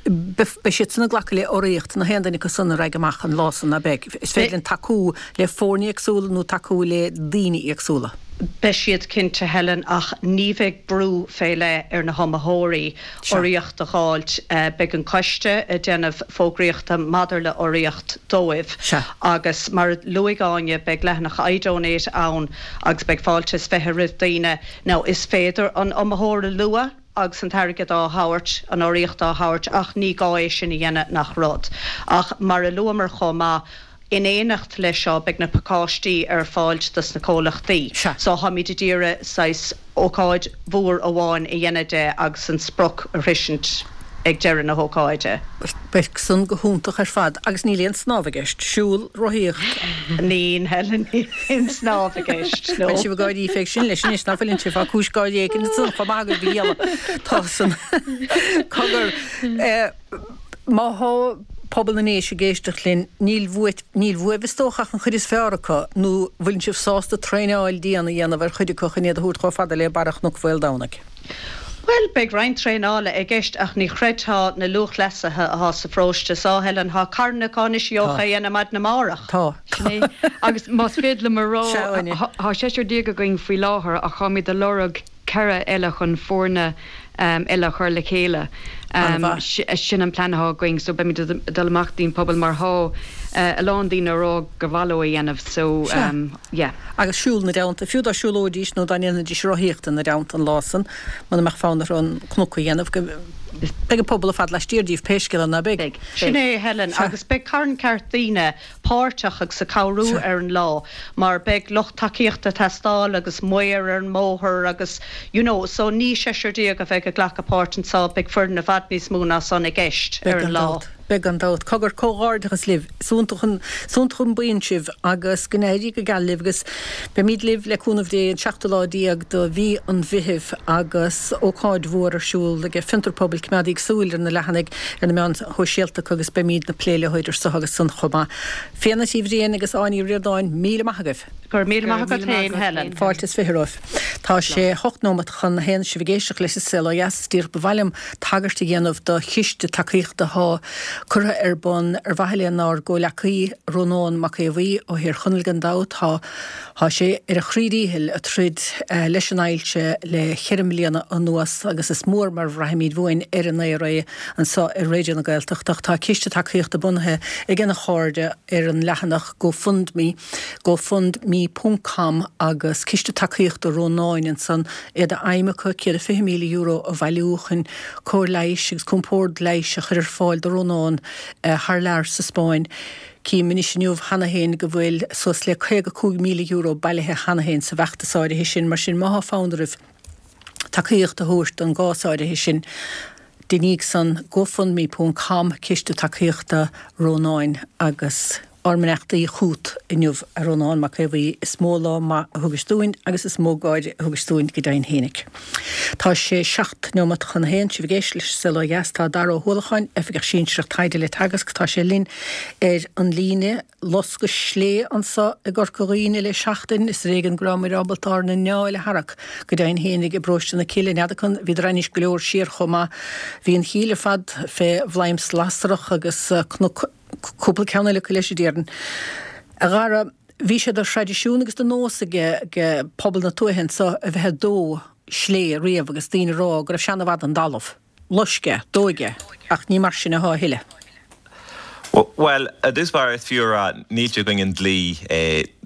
beidh siad san ag glacadh le urraíocht na haon duine acu san a raghaidh amach an lá san, ná beidh? Is féidir linn tacú le foirne éagsúla nó tacú le daoine éagsúla. Beidh siad cinnte, Helen, ach ní bheidh brú fé leith ar na hiomaitheoirí urraíocht a dh'fháilt. Beidh an coiste ag déanamh fógraíochta maidir le urraíocht dóibh agus mar a luaigh Áine, beidh leathanach iDonate ann agus beidh fáilte is 20 roimh daoine. Now is féidir an iomaitheoir a lua agus an t-airgead á thabhairt, an urraíocht á thabhairt ach ní gá é sin a dhéanamh nach rud. Ach mar a luamar chomh maith, in éineacht leis seo beidh na pacáistí ar fáilt dos na comhlachtaí. So táimid ag iarraidh saghas ócáid mhór amháin a dhéanamh de agus an sprioc a shroisint ag deireadh na hócáide. Beidh san go hiontach ar fad agus níl aon snámh i gceist. Siúl, rothaíocht. Níl, Helen, níl aon snámh i gceist, no. Bhfuil sibh ag gáirí fé sin leis anois, ná fuileann sibh? Tá cúis gáirí éigin ansan chomh maith agaibh, a ghialla. Tá san. Cogar, má thá pobal na nDéise ag éisteacht linn, níl uait, níl uaibh is dócha ach an chuid is fearr acu, nó bhfuileann sibh sásta traenáil dian a dhéanamh ar chuid acu chun iad a thabhairt chomh fada le barra Chnoc Mhaoldomhnaigh? Bhuel, beidh roinnt traenála i gceist ach ní chreidfeá na lúthchleasaithe athá sa pharóiste so, Helen. Thá carn acu anois a Tá. gheofá a dhéanamh maidin amárach. Tá. Sin é. Agus más féidir liom a rá, Sea, Áine. thá seisear déag againn faoi láthair ach tháimid ag lorg ceithre eile chun foirne eile a chur le chéile. An-mhaith. Sin an plean athá againn so beimid ag dul amach dtí'n pobal mar thá a lán daoine ag rá gur mhaith leo a dhéanamh so Sea. yeah. Agus siúl ina dteannta, fiú dá siúlóidís nó dá ndéanfaidís rothaíocht ina dteannta an lá san, muna mbeadh fonn orthu an cnoc a dhéanamh, go, beidh an pobal ar fad laistiar díobh, pé scéal é, ná beidh? Beidh. Sin é, Helen, agus beidh carn ceart daoine páirteach agus ag cabhrú ar an lá, mar beidh lucht tacaíochta ag teastáil agus maor ar an mbóthar agus you know, so ní seisear déag a bheidh ag glacadh páirt anso, beidh foireann i bhfad níos mó ná san i gceist Beidh ar an gan lá. dabht. Beidh gan dabht. Cogar, comhghairdeachas libh. Is iontach an, is iontach an buíon sibh agus go n-éirí go geal libh agus beimíd libh le cúnamh Dé an seachtú lá déag de mhí an Mheithimh agus ócáid mhór ar siúl ag Fiontar Pobail Coimeádaíg súil ar na leathanaigh ar na meáin shóisialta agus beimíd ag plé leo idir so agus san chomh maith. Fíona Tí Bhriain agus Áine Ní Ríordáin, míle maith agaibh! Go raibh míle maith agat féin, Helen. Fáilte is 20 romhaibh. Tá sé hocht nóimeat chun a haon sibh ag éisteacht leis an Saol Ó Dheas. Is díreach ba mhaith liom tagairt a dhéanamh do chiste tacaíochta atá curtha ar bun ar mhaithe lenár gcomhleacaí Rónán Mac Aodha Bhuí ó Thír Chonaill gan dabht. Tá tá sé ar a chroí díchill ag troid leis an ailse le cheithre mbliana anuas agus is mór mar bhraithimid uainn ar an aer é anseo ar Raidió na Gaeltachta. Ach tá ciste tacaíochta bunaithe ag a chairde ar an leathanach GoFundMe gofundme ponc com agus Ciste Tacaíochta Rónáin ansan, é d'aidhm acu €120,000 a bhailiú chun cóir leighis agus compord leighis a chur ar fáil do Rónán thar lear sa Spáinn. Cím anois inniu cheana féin go bhfuil suas le €55,000 bailithe cheana féin sa bhfeachtas áirithe sin, mar sin má thá fonn oraibh tacaíocht a thabhairt don gcás áirithe sin, deiníg san, gofundme ponc com Ciste Tacaíochta Rónáin agus. Ár mbeannachtaí chút inniu, a Rónán Mac Aodha Bhuí, is mó lá maith a thugais dúinn agus is mó gáire a thugais dúinn go deimhin fhéinig. Tá sé 7 neomat chun a haon, sibh ag éisteacht leis an Saol Ó Dheas, tá Dara Ó hUallacháin, Oifigeach Sinsearach Taighde le Teagasc, tá sé linn ar an líne. Loscadh slé anso i gCorca Dhuibhne le seachtain, is ar éigean go rabhamair ábalta ár n-anáil a tharrac go deimhin fhéinig i bparóiste na Cille, n'fheadar an, bhíodar ainnis go leor siar chomh maith. Bhí an Chill ar fad fé bhladhm slasrach agus cnoc. Cúpla ceann eile acu leis, a déarfainn. A Dhara, bhí sé de thraidisiún agus de nós ag pobal na tuaithe anso a bheith ag dó slé riamh agus daoine ag rá go raibh sé ana-mhaith don dtalamh. Loisc é, dóigh é, ach ní mar sin athá a thuilleadh. Bhuel, i dtús báire is fiú a rá, níl sé i gcoinne an dlí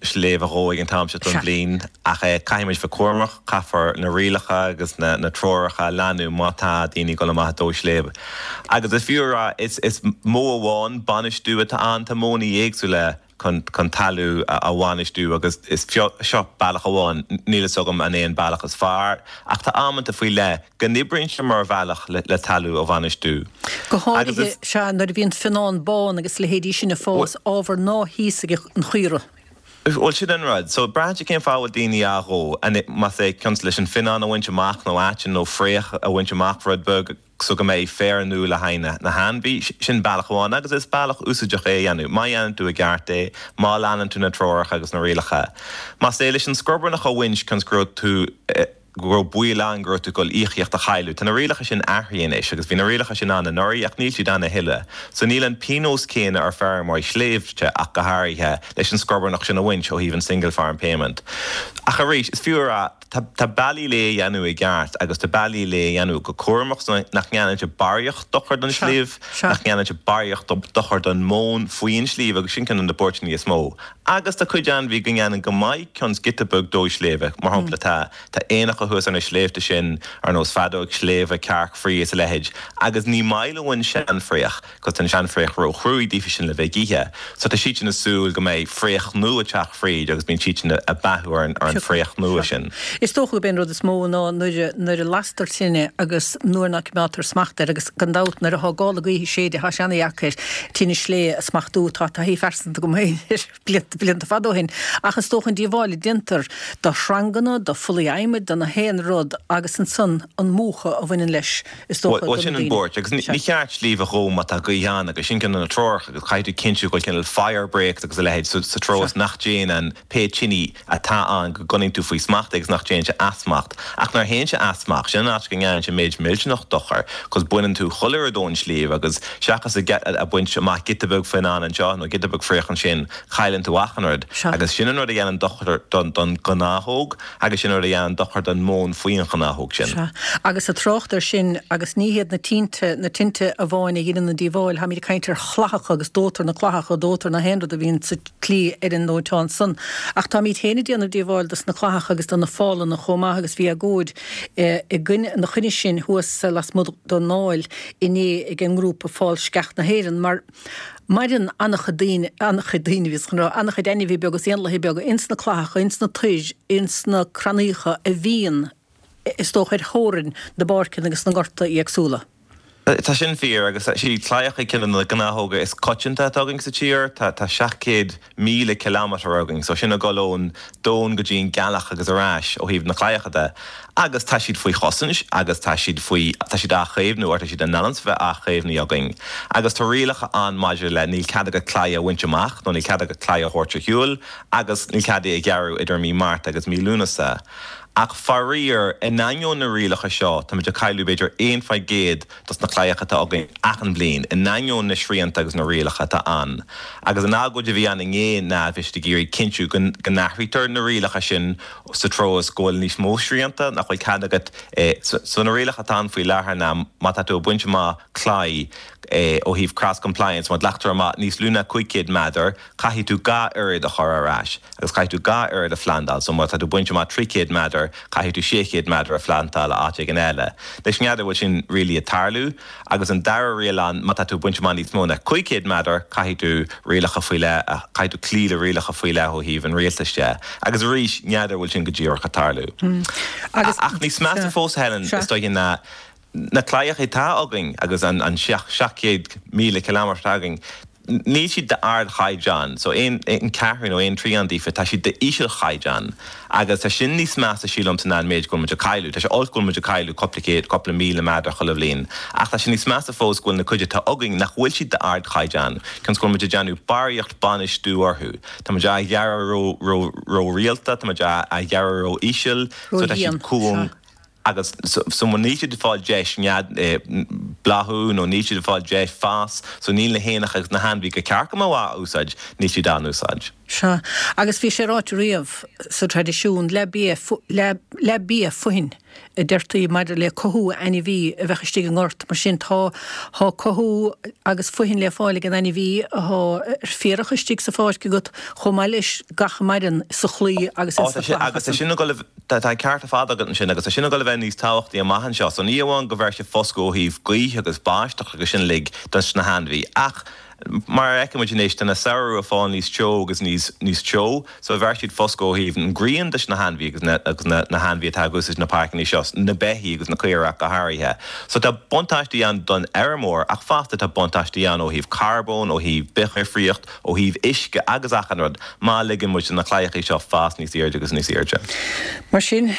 sléibh a dhó ag an t-am seo den bhliain, ach caithfidh muid bheith cúramach, caithfear na rialacha agus na treoracha a leanúint má tá daoine ag dul amach ag dó sléibh. Agus is fiú a rá, is modh amháin bainistiú atá ann, tá modhanna éagsúla chun talamh a bhainistiú agus is seo bealach amháin, níl fhios agam an é an bealach is fearr, ach tá amanta faoi leith go n-oibríonn sé mar bhealach le talamh a bhainistiú. Go háirithe, sea, nuair a bhíonn fionnán bán agus leithéidí sin ag fás, ábhar ná híosfaidh an chaora. Bhuel, sin an rud. So, braitheann sé cén fáth a bhfuil daoine á dhó. Más é cionn is leis an fionnán a bhaint amach nó aiteann nó fraoch a bhaint amach rud beag so go mbeidh féar nua le haghaidh na hainmhí, sin bealach amháin agus is bealach úsáideach é a dhéanamh, má dhéanann tú i gceart é, má leanann tú na treoracha agus na rialacha. Más é leis an scrobarnach a bhaint cionn is go raibh tú, go raibh baol ann go raibh tú ag dul íocaíocht a chailleadh. Tá na rialacha sin athraithe anois agus bhí na rialacha sin ann anuraidh ach níl siad ann a thuilleadh. So níl an pionós céanna ar feirmeoirí sléibhte ach go háirithe leis an scrobarnach sin a bhaint ó thaobh an single farm payment. Ach arís, is fiú a rá, tá tá bealaí le é a dhéanamh i gceart agus tá bealaí le é a dhéanamh go cúramach so nach ndéanann sé barraíocht dochar don sliabh, nach ndéanann sé barraíocht dochar don mhóin faoi an sliabh agus sin ceann de na buairteanna is mó. Agus tá cuid ainmhí go ndéanann go maith cionn is giota beag dó sléibhe. Mar shampla tá tá éanacha thuas ar na sléibhte sin ar nós feadóg sléibhe, cearc fraoigh is a leithéid agus ní maith leo an seanfhraoch 'cause tá an seanfhraoch ró-chruaidh daofa sin le bheith ag ithe. So tá siad sin ag súil go mbeidh fraoch nua ag teacht fríd agus bíonn siad sin ag beathú ar an ar an fraoch nua sin. Is dócha gurb é an rud is mó ná nuair nuair a lastar tine agus nuair ná coimeádtar smacht air agus gan dabht nuair athá gála gaoithe ag séideadh thá sé ana-dheacair tine slé a smachtú. Tá taithí phearsanta agam féin air blianta blianta fada ó shin. Ach is dócha an díobháil a déantar do shranganna, do phollaí adhmaid, do na haon rud agus ansan an múchadh a bhaineann leis is dócha do na Bhuel sin an daoine. buairt agus ní cheart sliabh a dhó má tá gaoth ann agus sin ceann de na treoracha agus caithfidh tú cinntiú go bhfuil cineál fire breaks agus a leithéid sa treo is nach dtéann an pé tine atá ann go gcoinníonn tú faoi smacht é agus nach dtéann sé as smacht. Ach nuair a théann sé as smacht, sin an áit go ndéanann sé méid millteanach dochair 'cause baineann tú chuile rud ón sliabh agus seachas a baint amach giota beag fionnán anseo nó giota beag fraoch ansin, cailleann tú achan rud. Agus sin an rud a dhéanann dochar don ghnáthóg agus sin an rud a dhéanann dochar don mhóin faoi an ghnáthóg sin. Sea. Agus ag trácht air sin, agus ní hiad na tinte, na tinte amháin a dheineann an díobháil, táimid ag caint ar chlathacha agus dóitear na clathacha, dóitear na haon rud a bhíonn sa tslí ar an ndóiteán san. Ach táimíd féin ag déanamh díobháil dos na clathacha agus do na fálanna chomh maith agus bhí agóid i gcoinne, ina choinne sin thuas lasmuigh den nDáil inné ag an ngrúpa Fál Sceach na hÉireann mar maireann an-chuid daoine, an-chuid daoine bhíos chun rá, an-chuid ainmhithe beaga is éanlaithe beaga ins na clathacha, ins na toir, ins na crannaíocha a bhíonn is dócha ar theorainn na bpáirceanna agus na ngorta éagsúla. Tá sin fíor, agus is iad claíocha ceann de na gnáthóga is coitianta atá againn sa tír. Tá 700,000 kilometre againn, so sin ag dul ón domhan go dtí an gealach agus ar ais ó thaobh na claíocha de. Agus tá siad faoi chosaint agus tá siad faoi, tá siad á chaomhnú or tá siad in ainm is a bheith á chaomhnú againn. Agus tá rialacha ann maidir le níl cead agat claí a bhaint amach nó níl cead agat claí a thabhairt ar shiúl agus níl cead é a ghearradh idir mí Márta agus mí Lúnasa. Ach faraor, in ainneoin na rialacha seo, táimid ag cailleadh b'fhéidir 1% dos na claíocha atá againn achan bhliain, in ainneoin na srianta agus na rialacha atá ann. Agus an agóid a bhí ann inné ná bhí siad ag iarraidh cinntiú go n-athraítear na rialacha sin sa treo is go bhfuil níos mó srianta, nach bhfuil cead agat So na rialacha atá ann faoi láthair ná má tá tú ag baint amach claí ó thaobh cross compliance, má ghlactar amach níos lú ná 500 méadar, caithfidh tú dhá oiread a chur ar ais. Agus caithfidh tú dhá oiread a phlandáil, so má tá tú ag baint amach 300 méadar, caithfidh tú 600 méadar a phlandáil áit éigin eile. Anois n'fheadar bhfuil sin really ag tarlú. Agus an dara riail ann, má tá tú ag baint amach níos mó ná 500 méadar, caithfidh tú rialacha faoi leith, caithfidh tú cloí le rialacha faoi leith ó thaobh an rialtais de. Agus arís, n'fheadar bhfuil sin go díreach ag tarlú. Ach níos measa fós, Helen, is dóiche ná Na claíocha atá againn agus an 700,000 kilometre atá againn, níl siad d'ardchaighdeán. So aon cheathrú nó aon trian díofa, tá siad d'ísealchaighdeán. Agus tá sin níos measa, sílimse, ná an méid go bhfuil muid ag cailleadh. Tá sé olc go bhfuil muid ag cailleadh cúpla céad, cúpla míle méadar chuile bhliain. Ach tá sé níos measa fós go bhfuil na cuid atá againn nach bhfuil siad d'ardchaighdeán, cionn is go bhfuil muid ag déanamh barraíocht bainistiú orthu. Tá muid á ghearradh ró, ró, ró-rialta, tá muid á ghearradh ró-íseal, so tá siad cúng. Agus so níl siad ag fáil deis nead, bláthú nó níl siad ag fáil deis fás, so níl na héanacha agus na hainmhithe gur ceart go mbeadh á úsáid, níl siad á n-úsáid. Sea, agus bhí sé ráite riamh sa traidisiún, leath bia, leath bia fothain a deirtí maidir le cothú ainmhí a bheadh istigh i ngort, mar sin tá, tá cothú agus fothain le fáil ag an ainmhí athá ar féarach istigh sa pháirc agat chomh maith leis gach a maireann sa chlaí agus ins na clathacha. Agus tá sin ag dul a. Tá an ceart ar fad agat ansin agus tá sin ag dul a bheith níos tábhachtaí amach anseo. So ní amháin go bhfeir sé foscadh ó thaobh gaoithe agus báisteach agus sin uilig dos na hainmhí ach mar a fheiceann muid anois tá na samhradh ag fáil níos teo agus níos níos teo so bheir siad foscadh ó thaobh an ghrian dos na hainmhí agus na agus na na hainmhí atá ag úsáid na páirceanna seo, na beithígh agus na caoirigh ach go háirithe. So tá buntáistí ann don fheirmeoir ach fosta tá buntáistí ann ó thaobh carbóin, ó thaobh bithdhifríocht, ó thaobh uisce agus achan rud, má ligeann muid do na claíochaí seo fás níos airde agus níos airde. Mar sin,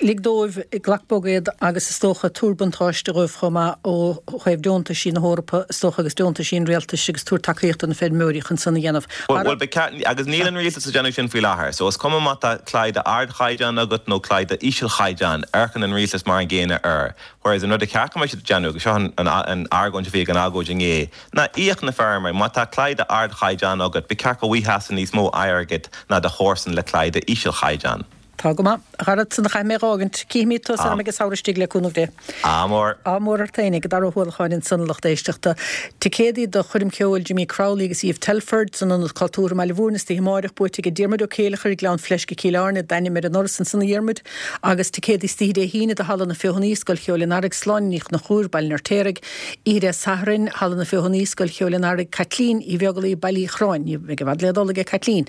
lig dóibh, glac bog iad agus is dócha tabhair buntáiste dhóibh chomh maith ó thaobh deontaisí na hEorpa is dócha agus deontaisí an rialtais agus tabhair tacaíocht do na feirmeoirí chun san a dhéanamh. Bhuel, ba cheart, agus níl an rialtas ag déanamh sin faoi láthair, so is cuma má tá claí d'ardchaighdeán agat nó claí d'ísealchaighdeán, amharcann an rialtas mar an gcéanna air. Whereas an rud a cheart go mbeadh siad ag déanamh, agus seo an argóint a bhí ag an agóid inné, ná íoc na feirmeoirí. Má tá claí d'ardchaighdeán agat, ba cheart go bhfaighfeása níos mó airgid ná do chomharsan le claí d'ísealchaighdeán. Tá go maith. A Dhara, ansan a chaithfidh mé a dh'fhágaint. Cífimid tusa orm ag an samhradh istigh le cúnamh Dé. Ádh mór. Ádh mór ort fhéinig. Dara Ó hUallacháin ansan, a lucht éisteachta. Ticéadaí do choirm cheoil Jimmy Crowley agus Eve Telford san Ionad Cultúrtha i mBaile Mhúirne istoíche amáireach buaite aige Diarmuid Ó Céileachair, Gleann Fleisce, Cill Airne, d'ainm ar an ndoras ansan a Dhiarmuid. Agus ticéadaí istoíche Dé hAoine do Halla na Feothanaí, Scoil Cheoil an Earraigh, Sláine Ní Chonchúir, Baile an Fheirtéaraigh. Oíche Dé Sathairn, Halla na Feothanaí, Scoil Cheoil an Earraigh, Caitlín Uí Bheaglaoi, Baile Uí Chorráin. Ní bheidh i bhfad le dul aige Caitlín.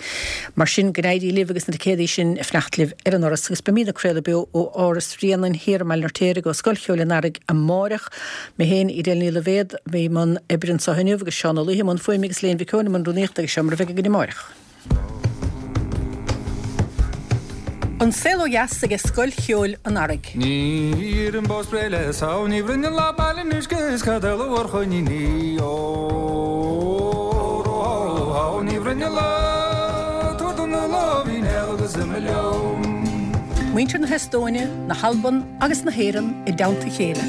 Mar sin, go n-éirí libh agus na ticéadaí sin ag fanacht libh ar an ndoras. Agus beimid ag craoladh beo ó Áras Bhréanainn thiar i mBaile an Fheirtéaraigh ó Scoil Cheoil an Earraigh amáireach. Mé féin, Edel Ní Loibhéad, a bhí i mbun oibre anseo inniu agus Seán Ó Laoithe i mbun fuaime agus Léan Mhic Eoin i mbun rúnaíochta agus seo mar a bheidh againn amáireach. An Saol Ó Dheas aige Scoil Cheoil an Earraigh. Ní an bó spréidh le samh, ní bhroinn an lá baile in uisce is cad eile mhór choiníní ó ró hó hó ní bhroinn an lá tabhair dom na láimhín agus imigh liom. Muintir na hEastóine, na hAlban agus na hÉireann i dteannta a chéile.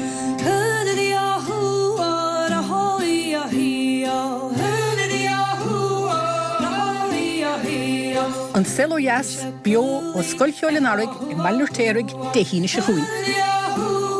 An Saol Ó Dheas, beo ó Scoil Cheoil an Earraigh i mBaile an Fheirtéaraigh, Dé hAoine seo chugainn.